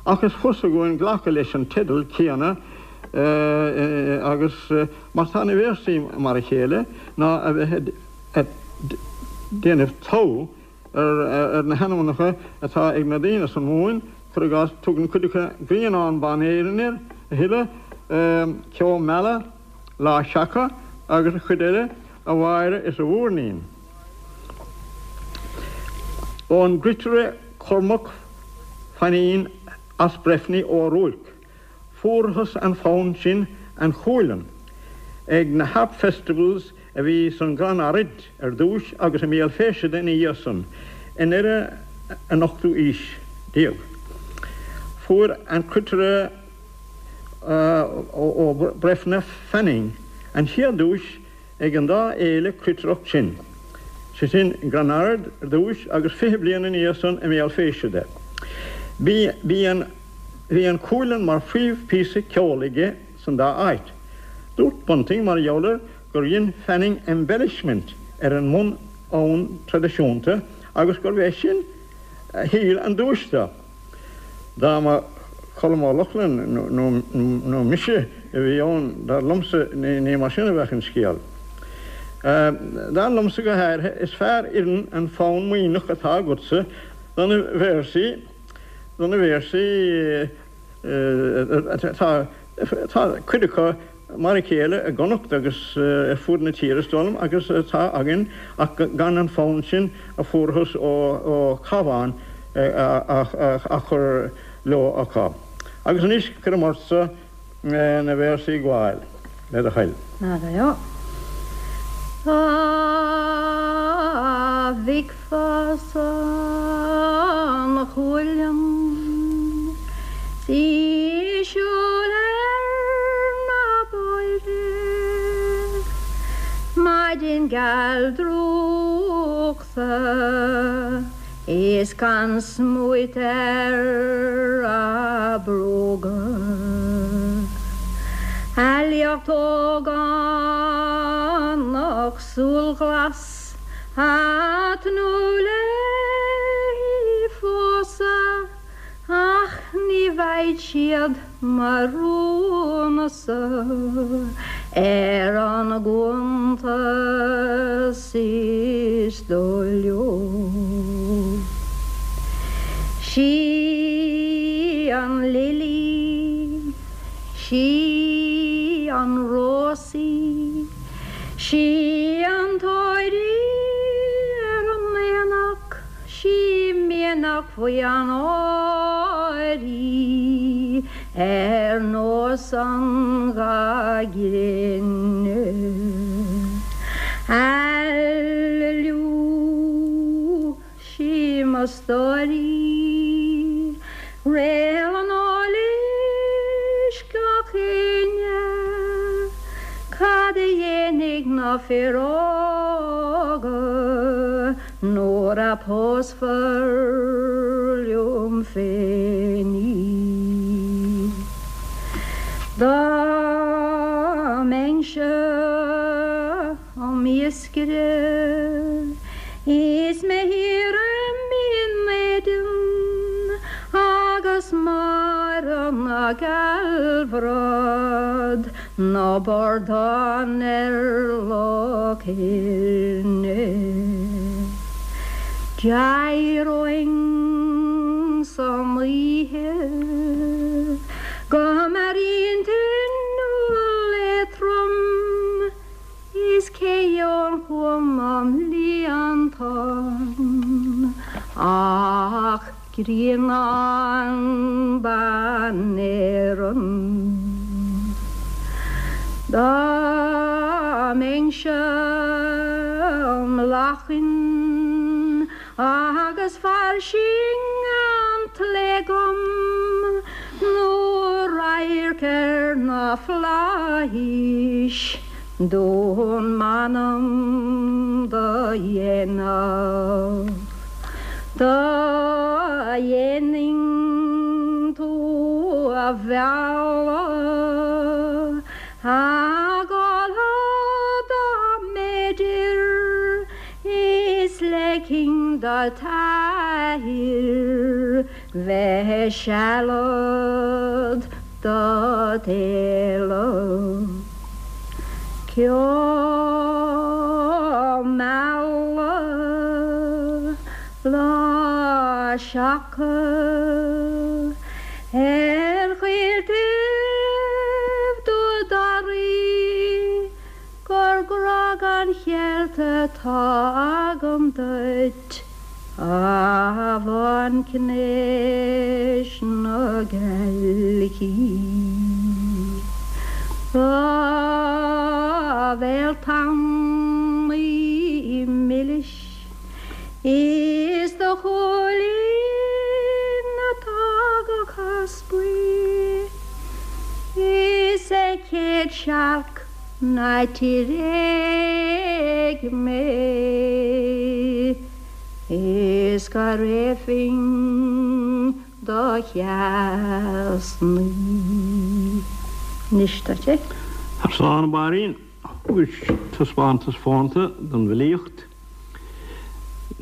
Speaker 14: ach is fusa dhúinn glacadh leis an teideal céanna agus mar tá na véarsaí mar a chéile ná a bheith ag déanamh togha ar na hainmneacha atá ag na daoine san Mhumhain, cuir i gcás, tugann cuid acu Grianán Ban Éireann air, a thuilleadh, Ceo Meala, Lá Seaca agus an chuid eile, a Mháire is a Mhúirnín. Ón gcruitire Cormac Fainín as Breifne Ó Ruairc, fuarthas an fonn sin An Chualann ag na Harp Festivals a bhí san gCrann Araid ar dtúis agus i mBéal Feirste ina dhiaidh san, i ndeireadh an ochtú aois déag. Fuair an cruitire ó Breifne Fanning an chéad duais ag an dá fhéile cruitireacht sin, sé sin i gCrann Ard ar dtúis agus 20 bliain ina dhiaidh san i mBéal Feirste. Bhí an Bhí an Cualann mar phríomhphíosa ceoil aige san dá áit. Dúirt Bunting mar gheall air gur dhein Fanning embellishment ar an mbun-fhonn traidisiúnta agus gurbh é sin a thuill an duais dó. Dá mba Colm Ó Lochlainn nó mise a bhí ann, dar liomsa, ní mar sin a bheadh an scéal. Dar liomsa go háirithe, is fearr oireann an fonn Muimhneach atá agatsa do na véarsaí, do na véarsaí atá, tá cuid acu mar a chéile i gConnacht agus ar fud na tíre is dóigh liom agus atá againn ach gan an fonn sin a fuarthas ó Chabhán á chur leo acu. Agus anois cuirim ortsa na véarsaí a ghabháil, le do thoil.
Speaker 15: Dá bhfeicfeása an Chualann 's í ag siúl ar na bóithre maidin geal drúchta Is gan smúit ar a bróga. A liacht ógánach súilghlas a' tnúth léi phósadh ach ní bheidh siad mo rún-sa ar an gcuntas is dóigh leo. Sí an lilí, sí an rós í, sí an t-ór í ar an aonach, Sí mianach bhuí an áir í ar nós an gha gréine. Aililiú, sí mo stór í, réal an eolais gach éinne, cad a dhéanfaidh na fir óga? Nuair a pósfar liom féin í. Dá mbeinnse im iascaire. Is mé thiar i mBinn Éadain agus Máire na Gealbhrat ná bordán ar Loch Éirne. D'éireoinn san oíche go mearaíonn tine éadrom Is cé gheobhainn chugam i mbliantán ach grianán ban Éireann. Dá mbeinnse im lachain Agus fairsing an tslí agam nó radharc ar na flaithis d'fhonn m'anam do dhéanamh. Do dhéanfainn tú a mhealladh a dhul dá mb'fhéidir Is leigfinn do t'athair bheith sealad do d'éileamh. Ceo meala lá seaca ar choilltibh Dúil Daraí. Gur grá gan cheilt atá agam duit, a bhanchnéis na gealaí. Do bhéal tanaí milis is do shúilín atá go caspaí is é chéad searc Ná tréig mé is go réabfainn do sheasnaí. Anois tá sé.
Speaker 14: Tar slán, a Mháirín. Thugais taispeántas fónta don bhfilíocht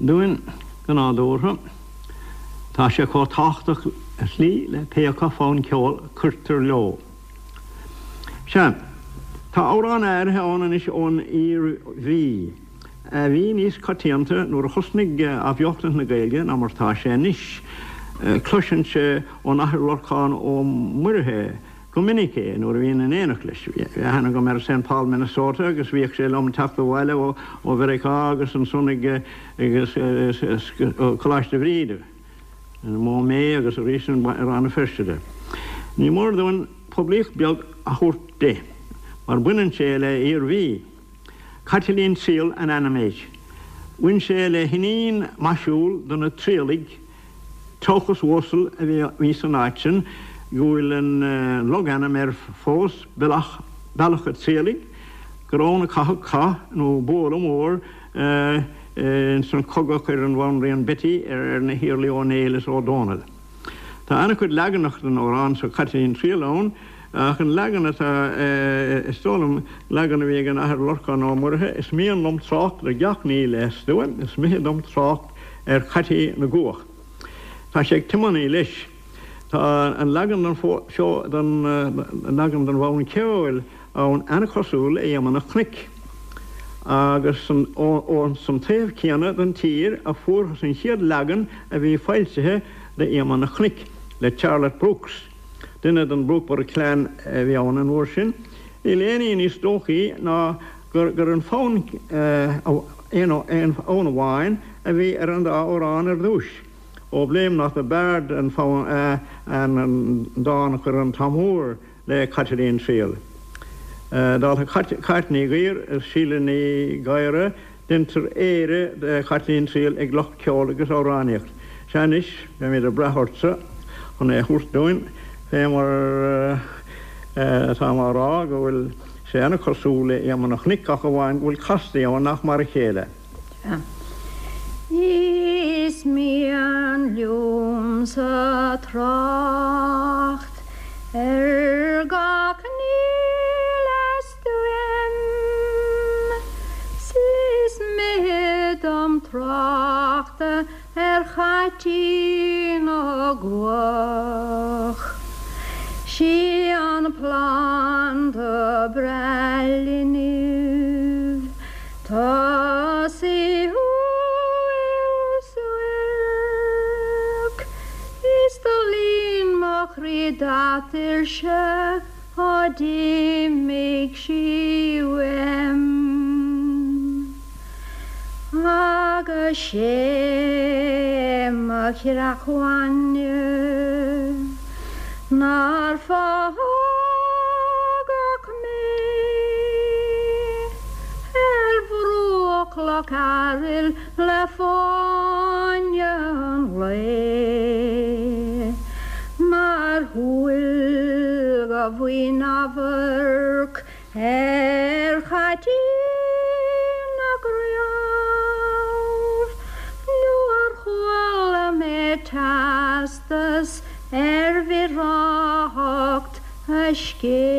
Speaker 14: dúinn go nádúrtha. Tá sé chomh tábhachtach ar shlí le pé acu fonn ceoil a cuirtear leo. Sea, tá amhráin áirithe ann anois ón Iarmhí, a bhí níos coitianta nuair a thosnaigh athbheochtaint na Gaeilge ná mar atá sé anois. Cloisinnse ón Athair Lorcán Ó Muirithe go minic é nuair a bhínn in éineacht leis. Bhí aithne agam air i Saint Paul, Minnesota agus bhíodh sé liom ag teacht abhaile ó Mheiriceá agus ansan ag Coláiste Bhríde. I Maumee agus arís i Rann na Feirste de. Ní mór dúinn poiblíocht beag a thabhairt di, mar baineann sé le Iarmhí. Caitlín Triall an ainm air. Bhain sé le hiníon maisiúil de na Triallaigh, tochas uasal a bhí san áit sin, go bhfuil an logainm air fós, Bealach a' Triallaigh, gur ann a caitheadh cath nó bualadh mór Ins an chogadh a chuir an Bhanríon Betty ar na hIarlaí Ó Néill is Ó Dónaill. Tá an-chuid leaganacha den amhrán so Caitlín Triall ann, ach an leagan atá, is dóigh liom, leagan a bhí ag an Athair Lorcán Ó Muirithe, is mian liom trácht ar gach ní le stuaim, is mithid dom trácht ar Chaití na gCuach. Tá sé ag tiománaí leis. Tá an leagan den leagan den bhfonn ceoil ann an-chosúil le Iomaire an Chnoic, agus ón san taobh céanna den tír a fuarthas an chéad leagan a bhí foilsithe de Iomaire an Chnoic, le Charlotte Brooks, duine den Brookeborough clan a bhí ann an uair sin. Níl aon ní níos dóichí ná gur an fonn aon fhonn amháin a bhí ar an dá amhrán ar dtúis. Oh Blame Not the Bard an fonn an dán a chuir an Tom Úr le Caitlín Triall. Dála Cáit Ní Ghuidhir is Síle Ní Ghadhra, deintear Éire de Chaitlín Triall ag lucht ceoil agus amhránaíocht. Sea anois, beimid ag brath ortsa chun é a thabhairt dúinn, fé mar atáim á rá go bhfuil sé ana-chosúil le Iomaire an Chnoic ach amháin go bhfuil castaí ann nach mar a chéile.
Speaker 15: Is mian liomsa trácht ar gach ní le stuaim 's is mithid dom. tráchta ar chaitín na gcuach. Sí an planda breá linbh, tá sí umhal suairc, is do líon mo chroí d'atuirse ó d'imigh sí uaim. Agus sé mo chreach bhainne nár fágadh mé ar bhruach Loch Airill le fáinne an lae, mar shúil go bhfaighinn amharc Ar chaitín na gcraobh nó ar chuala mé teastas ar bhreáthacht a scéimh.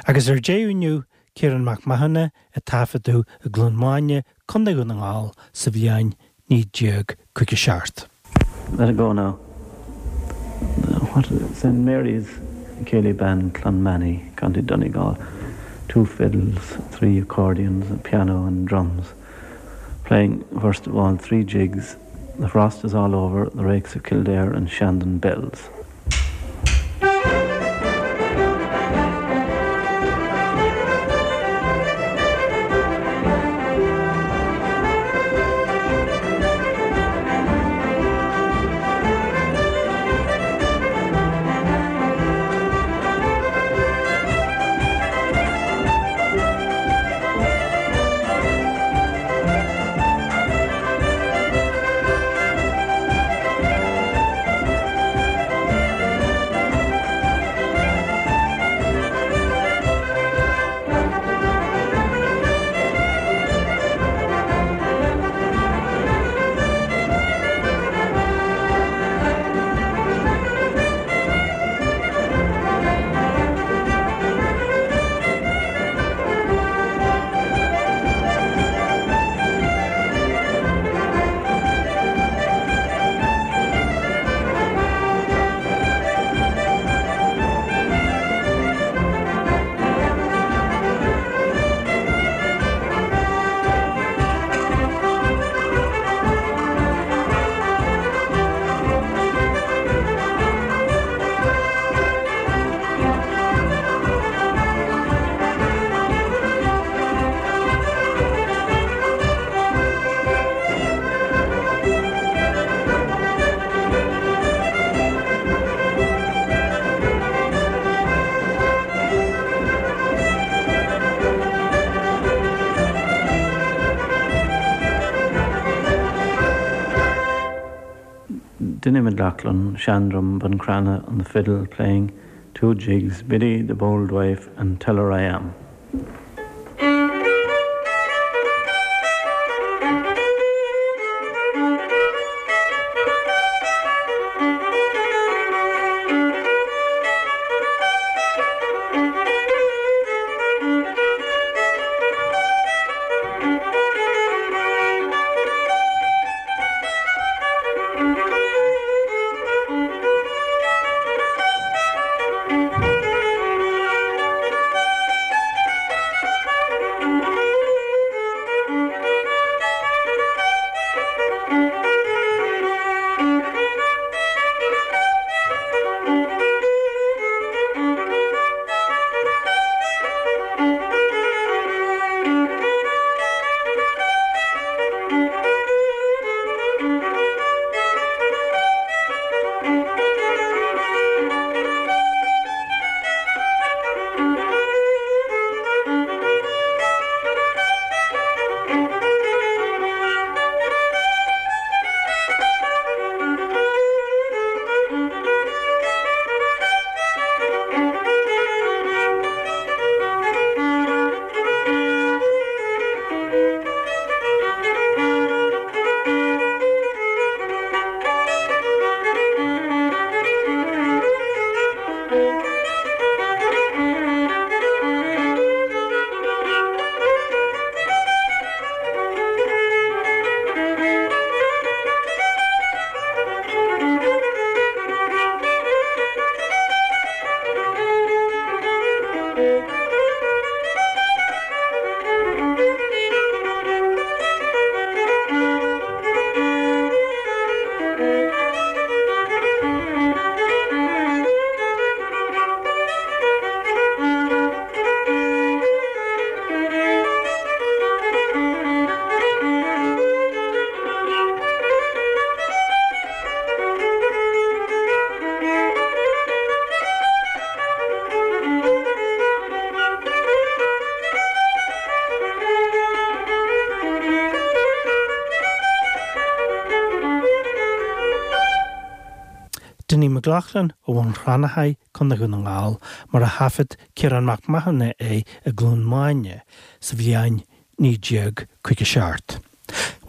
Speaker 3: Agus ar deireadh inniu, Ciarán Mac Mathúna a taifeadadh i gCluain Maine, Co. Dhún na nGall sa bhliain 1957.
Speaker 16: Let it go now. What St Mary's Céilí Band, Clonmany, County Donegal. Two fiddles, three accordions, a piano and drums. Playing, first of all, three jigs, The Frost is All Over, The Rakes of Kildare and Shandon Bells. Dinny McLaughlin, Shandrum, Buncrana on the fiddle playing two jigs, Biddy the Bold Wife and Tell Her I Am.
Speaker 3: Loughlin ó Bhun Cranncha, Co. Dhún na nGall, mar a thaifead Ciarán Mac Mathúna é i gCluain Maine sa bhliain 1957.